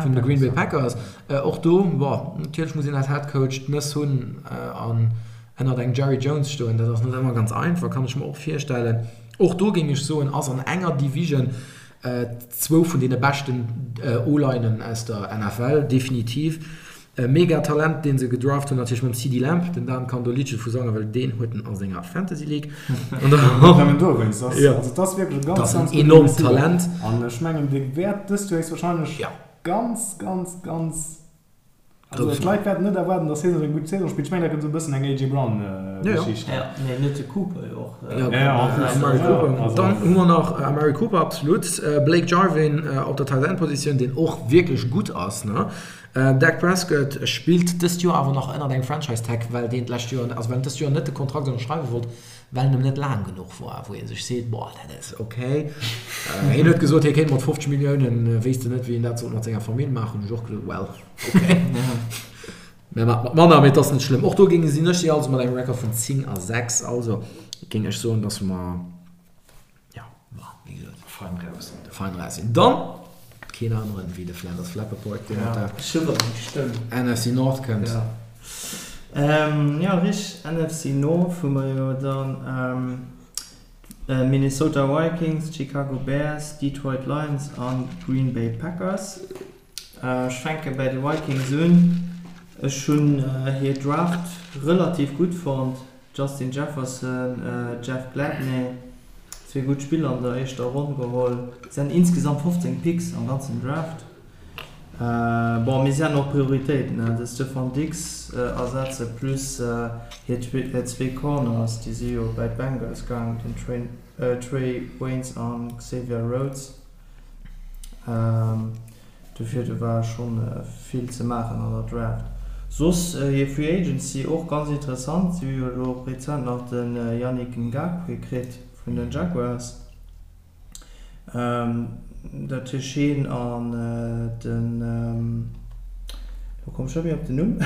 vun de Green Bay Packers. Och do, bon, natierlech muss een als Headcoach d'Nëss hunn an ënnert engem Jerry Jones stoen, dat ass net ëmmer ganz einfach, kann ech mer och virstellen. Och do géing ech soen, ass an enger Division zwou vun deene beschten O-Linen aus der NFL, definitiv. E mega Talent deen se gedraft hunn natierlech mam CeeDee Lamb, den Dan kann do Liddche vu sangen, well deen huet en a senger Fantasy League. An dann Net nëmmen dowéinst, ass, Ja. also et ass wierklech e ganz, Dat ass en ganz gudde enormt Receiver. Talent. An ech mengen dee wäert dëst Joer héchstwahrscheinlech Ja. ganz, ganz, ganz, also Grouss d'Leit wäerten net erwaarden, datt hie sou eng gutt Saison spillt. Ech mengen dat gëtt esou e bëssen eng AJ Brown Ja, ja. Geschicht. Ja, nee, net de Cooper jo och. Ja, Ja, en plus. Amari Ja, Cooper. also- Dann hu mer nach Amari Cooper, absolut. Blake Jarwin op der Tight End Positioun, deen och wierklech gutt ass, ne? Dak Prescott spillt dëst Joer awer nach ënnert engem Franchise Tag, well deen d'lescht Joer, also well en dëst Joer net de Kontrakt ënnerschreiwe wollt, well en em net laang genuch war, wou ee sech seet, boah, dat ass ok. Hien huet gesot, hie kéint mat 50 Milliounen, wéisst en net, wéi en dat sollt mat senger Famill maachen. Hunn ech och gesot, well, ok, mä mat mat manner, mee et ass net schlëmm. Och do géinge sinn ech si also mat engem Record vun 10 a 6, also géing ech soen, dass mer, Ja, ma wéi gesot, fein raus sinn. Fein raus sinn. Dann keen aneren wéi de Flanders Flappaport, deen mat der NFC North kënnt. Ja, ja richteg, NFC North hu mer jo dann Minnesota Vikings, Chicago Bears, Detroit Lions an Green Bay Packers. Ech fänke bäi de Vikings un. Ech hunn hir Draft relativ gutt fonnt. Justin Jefferson, Jeff Gladney, zwee gutt Spiller an der éischter Ronn geholl. Si haten insgesamt 15 Picks am ganzen Draft. Bon, mee si haten och Prioritéiten, de Stefon Diggs ersetze plus hir zwee Corners, déi si jo bäi d'Bengals gaang, den Trae Waynes an Xavier Rhodes. Dofir do war schonn vill ze maachen an der Draft. Soss hir Free Agency och ganz interessant, si hu jo elo rezent nach de Yannick Ngakoue kritt vun den Jaguars. Dat heescht hien an den, elo komm ech net méi op den Numm.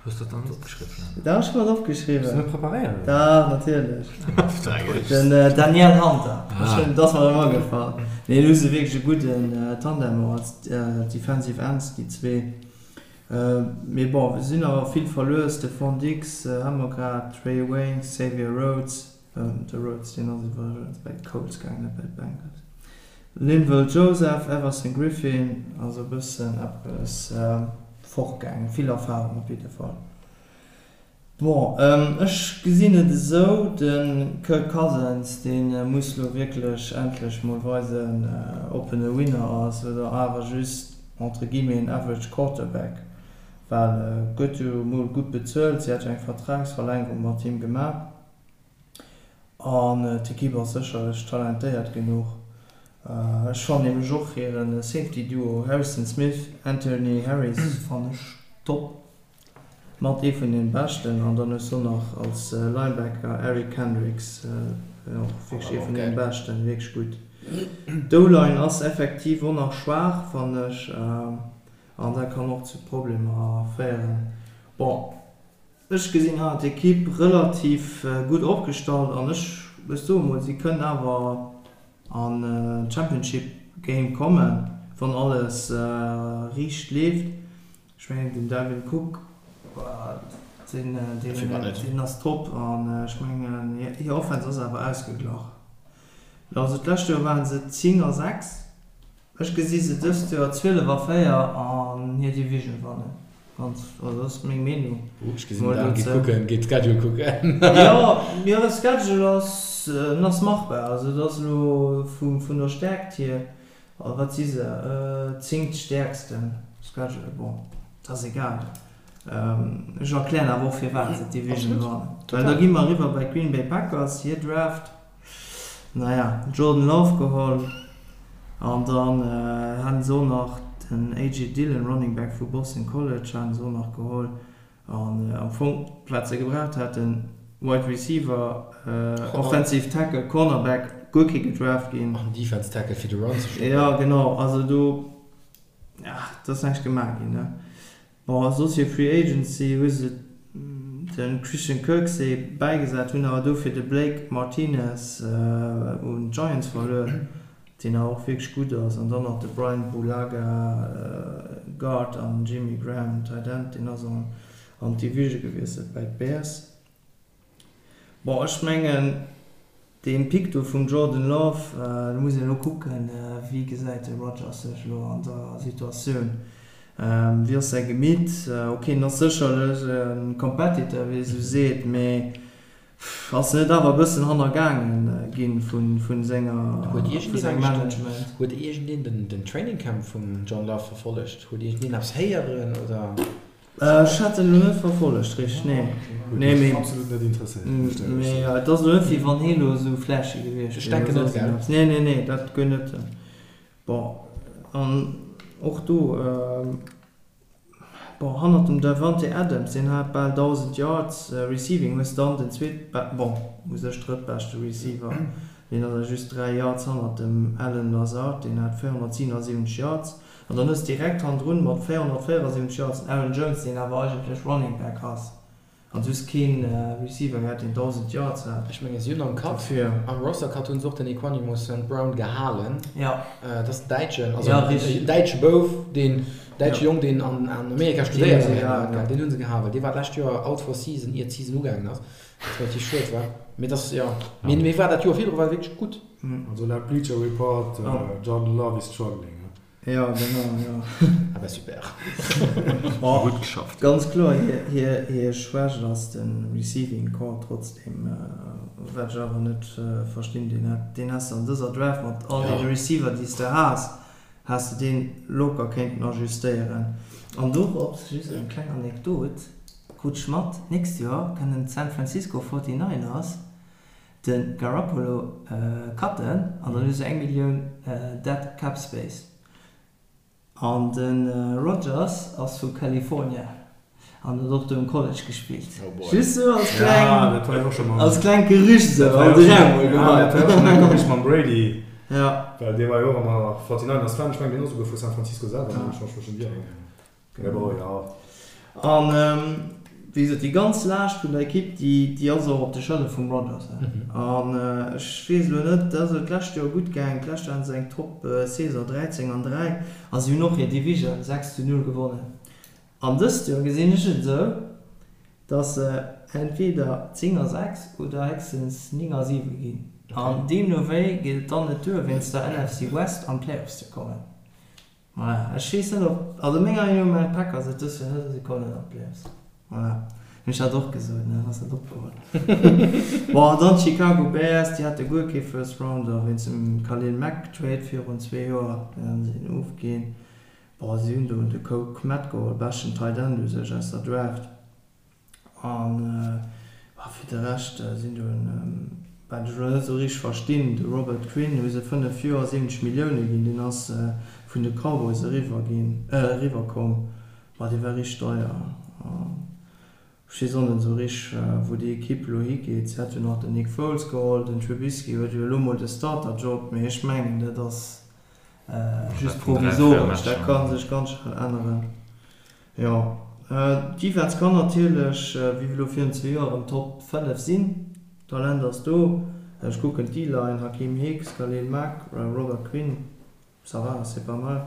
Hues de dat dann net opgeschriwwen? Dach, ech hunn dat opgeschriwwen. Hues de net preparéiert? Dach, natierlech. Den Danielle Hunter. Ech hunn, dat ass mer erëm agefall. Nee, do hu se wierklech e gudden Tandem och als Defensive Ends, déi zwee. Mee bon, se sinn awer vill verluer. Stefon Diggs hu mer grad, Trae Waynes, Xavier Rhodes. De Rhodes, deen ass iwwregens bei d'Colts gaangen, net bei d'Bengals. Linval Joseph, Everson Griffen, also e bëssen eppes fortgaangen, vill Erfarung op jidde Fall. Bon, ech gesinn et esou, de Kirk Cousins, dee muss lo wierklech endlech mol weisen, ob en e Winner ass oder awer just entre guillemets en average Quarterback, well e gëtt jo mol gutt bezuelt, si hat jo eng Vertragsverlängerung mat him gemaach. An d'Ekipp ass sécherlech talentéiert genuch. Ech fannen nämlech och hiren Safety Duo Harrison Smith, Anthony Harris fannen ech top. Mat ee vun den beschten. An dann hues du nach als Linebacker Eric Kendricks, och wierklech ee vun den beschten, wierklech gutt. D'O-Line ass effektiv och nach schwaach fannen ech an dat kann och zu Problemer féieren. Bon. Ech gesinn awer d'Ekipp relativ gutt opgestallt an ech ech soe mol, si kënnen awer an d'Championship Game kommen, wann alles riicht leeft. Ech mengen den Dalvin Cook, deen deen ass top an ech mengen hir Offense ass awer ausgeglach. Also d'lescht Joer waren se 10 a 6. Ech gesi se dëst Joer 12 a 4 an hir Division wannen. Ganz, also dat ass meng Meenung. Ech gesinn den Dan geet kucken, geet d'Schedule kucken. Jo, jo de Schedule ass. en ass machbar. Also et ass elo vun der Stäerkt hier, wat si se, zéngt stäerksten Schedule, bon, dat ass egal. Ech erklären awer och firwat se d'Division wannen. Well da gi mer eriwwer bei d'Green Bay Packers, hir Draft, naja, Jordan Love geholl an dann haten se och nach den AJ Dillon, Running Back vu Boston College, haten se och nach geholl. An am Fong wat se gebraucht haten, Wide Receiver, Offensive Tackle, Cornerback, guer kee gedraft ginn. An Defense Tackle fir de Run ze stoppen. Jo genau, also do, ja, et ass näischt gemaach ginn, ne. Bon, a soss hir Free Agency hu se de Christian Kirksey bäigesat, hunn awer dofir de Blake Martinez un d'Giants verluer. Deen awer och wierklech gutt ass, an dann nach de Bryan Bulaga, Guard, an Jimmy Graham, Tight End, deen ass an d'Division gewiesselt bäi d'Bears. Bon, ech mengen, dee Pick do vum Jordan Love, do muss een elo kucken, wéi gesäit de Rodgers sech elo an der Situatioun, wéi ass säi Gemitt? Ok, en ass sécherlech e Competitor, wéi ee sou seet, mee Ass en net awer e bëssen hannergaangen ginn vun senger, vun sengem Management? Huet iergendeen den Training Camp vum John Love verfollegt? Huet iergendeen eppes héieren oder? Ech hat en elo net verfollegt richteg, nee. Huet mech absolut net interesséiert, muss ech éierlech soen. Mee et ass elo net wéi wann hee elo esou flashy gewiescht wier. Ech denken net, gell? Nee, nee, nee, dat guer net. Bon, an och do. Bon, hannert dem Davante Adams, deen hat bal 1.000 Yards receiving, hues dann den zweet, bon, u sech drëttbeschte Receiver, deen ass awer just 3 Yards hannert dem Allen Lazard, deen hat 477 Yards. An dann hues direkt hannendrun mat 474 Yards den Aaron Jones, deen awer eigentlech Running Back ass. An soss keen Receiver gehat deen 1000 Yards hat. Ech mengen si hunn am Cut, am Roster Cut hunn se och den Equanimeous St. Brown gehalen. Jo. Dat ass den däitschen, also en däitsche Bouf, deen däitsche Jong deen an Amerika studéiert huet. Deen hunn se gehalen. Dee war d'lescht Joer out for season ier d'Season ugaangen ass, wat relativ schued war. Mee dat jo, mee war dat Joer virdru war wierklech gutt. Also laut Bleacher Report, Jordan Love is struggling. Jo, genau, jo. Ah bah super. Gutt geschafft. Ganz kloer, hir Schwächt ass de Receiving Corps trotzdem, wat ech awer net verstinn, deen has de an dëser Draft mat all deene Receiver déi s de has, has de deen locker kéinten ajustéieren. An dorops just eng kleng Anekdot, krut ech mat, d'nächst Joer kënnen d'San Francisco Forty Niners De Garoppolo cutten an dann hu se eng Millioun dead cap space. An de Rodgers ass vu California an huet och do um College gespillt. Just sou als kleng, als klengt Gerücht sou an de Raum mol geheit. Dat war jo schonn eng Gerücht mam Brady, well dee war jo och ëmmer Forty Niners Fan. Ech mengen deen ass esouguer vu San Francisco selwer, wann ech mech net ieren. Mee bon, jo. An wéi gesot, déi ganz Laascht vun der Ekipp, déi ass och op de Schëllere vum Rodgers. An ech weess elo net, dat ass elo d'lescht Joer gutt gaangen, d'lescht Joer haten se eng Top-Saison, 13 an 3, a si hunn och hir Division 6 zu 0 gewonnen. An dëst Joer gesinn ech et esou, datt se entweder 10 a 6 oder héchstens 9 a 7 ginn. An deemno wéi geet et dann net duer, wéinst der NFC West an d'Playoffs ze kommen. Voilà, ech weess net op, also menger Meenung no maachen d'Packers et dës Joer net a si kommen net an d'Playoffs. Voilà, hunn ech dat och gesot, ne, ass dat opgeholl. Bon, an dann d'Chicago Bears, déi hate guer kee First Rounder wéinst dem Khalil Mack Trade virun zwee Joer, deen hunn se ofginn. Bon, si hunn do de Cole Kmet geholl, beschten Tight End u sech aus der Draft. An fir de Rescht sinn do, wat ech elo net esou richteg verstinn, de Robert Quinn hu se 5 Joer 70 Millioune ginn, deen ass vun de Cowboys eriwwer ginn, eriwwer komm, ma dee war richteg deier. Ech weess och net esou richteg, wou déi Ekipp elo higeet. Si hat jo nach den Nick Foles geholl, den Trubisky huet jo elo mol de Starter-Job, mee ech mengen dat ass just provisoresch, dat ka sech ganz schnell änneren. Jo, d'Defense kann natierlech, wéi elo virun zwee Joer, erëm Top 5 sinn. D'Talent ass do. Ech kucken d'D-Line, Hakeem Hicks, Khalil Mack, Robert Quinn, ça va, c'est pas mal.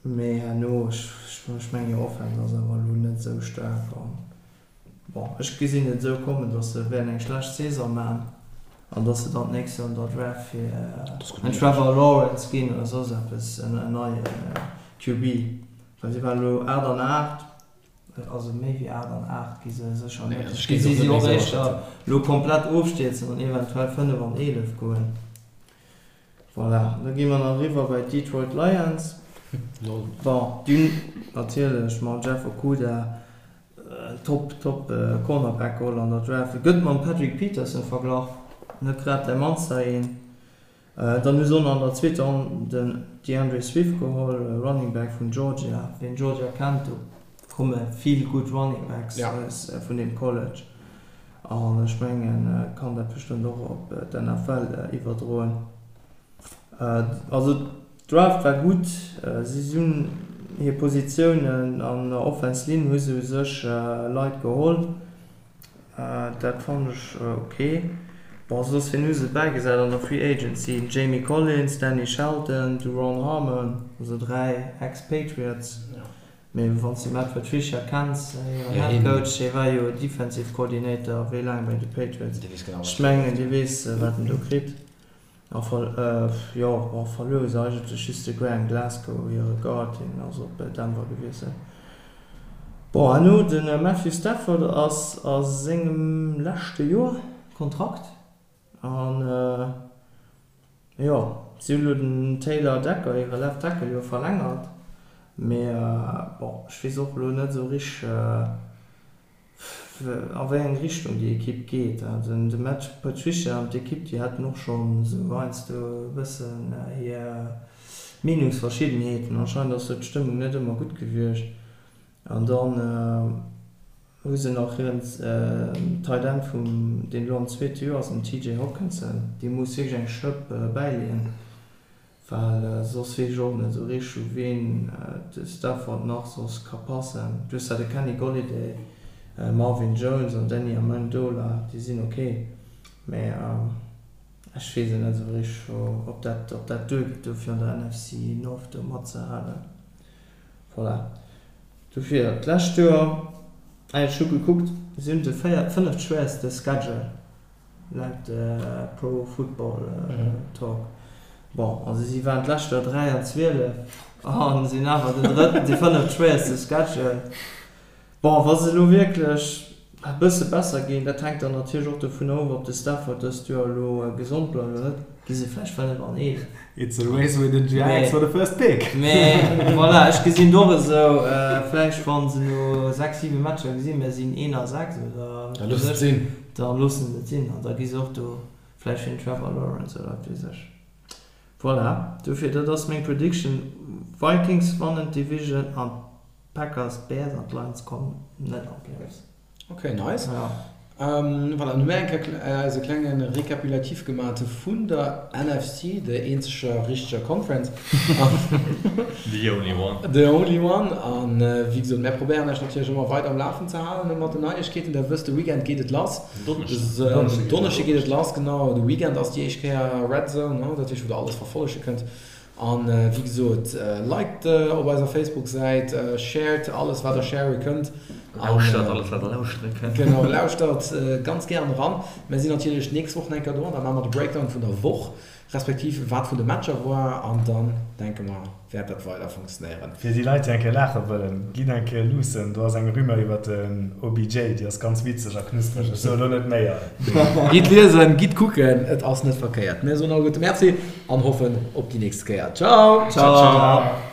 Mee herno, ech mengen hir Offense ass awer elo net esou staark. Bon, ech gesinn et esou kommen, dass se wäerten eng schlecht Saison man an dass se dann d'nächst Joer an der Draft fir en Trevor Lawrence ginn oder soss eppes, en neie QB, well si waren elo 8 an 8. Also méi wéi 8 an 8 gi se sécher net. Ech gesi si och éischter elo komplett ofstierzen an eventuell 5 an 11 goen. Voilà, da gi mer nach eriwwer bei d'Detroit Lions. Bon, déi hunn natierlech mam Jeff Okudah en top, top Cornerback geholl an der Draft. E gëtt mam Patrick Peterson verglach, net grad däi mannster een. Dann hu se och nach an der zweeter Ronn den D'Andre Swift geholl, Running Back vun Georgia. Wien Georgia kennt, do komme vill gutt Running Backs vun deem College. An ech mengen, et kann dat bestëmmt och op d'NFL iwwerdroen. Also d'Draft war gutt. Si hunn hir Positiounen an der Offense Line hu se u sech Leit geholl. Dat fannen ech ok. Bon, soss wien hu se bäigesat an der Free Agency? Den Jamie Collins, Danny Shelton, Duron Harmon, also 3 Ex-Patriots. Mee wann s de Matt Patricia kenns, hiren Head Coach, dee war jo Defensive Coordinator wéi laang bei de Patriots. Ech mengen, dee weess wat en do kritt. A jo, bon, verluer hu se eigentlech just de Graham Glasgow, hire Guard, deen ass op Denver gewiesselt. Bon, herno de Matthew Stafford ass a sengem leschte Joer Kontrakt an jo, si hunn elo den Taylor Decker, hire Left Tackle, jo verlängert, mee bon, ech weess och elo net esou richteg, A wéi eng Richtung déi Ekipp geet. De Matt Patricia an d'Ekipp, déi haten och schonn esou heiansdo e bëssen hir Meenungsverschiddenheeten. Anscheinend ass do d'Stëmmung net ëmmer gutt gewiescht. An dann hu se nach hiren Tight End vum, deen elo am zweete Joer ass, den TJ Hockenson, dee muss wierklech eng Schëpp bäileeën. Well soss weess ech och net esou richteg u ween de Stafford nach soss ka passen. Du hues zwar de Kenny Golladay, Marvin Jones an Danny Amendola, déi sinn ok, mä ech weess et net esou richteg ob dat ob dat duergeet do fir an der NFC North do matzehalen. Voilà, dofir d'lescht Joer, ech hu gekuckt, si hunn de véiert, fënneft schwéierste Schedule. Laut Pro Football Talk. Bon, also si waren d'lescht Joer 3 an 12 a sinn awer den drëtten, de fënneft schwéierste Schedule. Bon, wa se elo wierklech e bësse besser ginn, dat hänkt dann natierlech och dovun of, ob de Stafford dëst Joer elo gesond bleift oder net, gi se vläicht 5 an 11. It's a race with the Jags for the first pick. Mee voilà, ech gesinn et och esou, vläicht wa se no 6, 7 Matcher gesinn, mir sinn 1 a 6 oder Da looss et sinn. Da loossen se et sinn an da gi se och do vläicht fir den Trevor Lawrence oder wat weess ech. Voilà, dofir dat ass meng Prediction, Vikings wannen d'Division an d'Packers, d'Bears an d'Lions kommen net an d'Playoffs. Ok, nice. Voilà, dann hu mir eng Kéier eise klenge Rekapulatif gemat vun der NFC, der eenzeger richteger Conference. The only one. The only one. An wéi gesot, mär probéieren iech natierlech ëmmer weider um Lafen ze halen mat den Neiegkeeten. Der wësst, de Weekend geet et lass. Donneschden. Donneschde geet et lass, genau. De Weekend ass déi éischt Kéier Red Zone, dat heescht, wou der alles verfollege kënnt. An wéi gesot, liked op eiser Facebook Säit, shared alles wat der share kënnt. Lauschtert alles wat der lauschtere kënnt. Genau, lauschtert ganz gären eran. Mär sinn natierlech d'nächst Woch nach eng Kéier do an da maache mer de Breakdown vun der Woch, respektiv wat vun de Matcher war an dann denke mer wäert dat weider funktionéieren. Fir déi Leit déi eng Kéier laache wëllen, gitt eng Kéier luussen, do ass eng Rumeur iwwert den OBJ, déi ass ganz witzeg a knuspreg, ech soe lo net méi. Gitt liesen, gitt kucken, et ass net verkéiert. Mir soen alleguerte Merci an hoffen op déi nächst Kéier. Ciao! Ciao!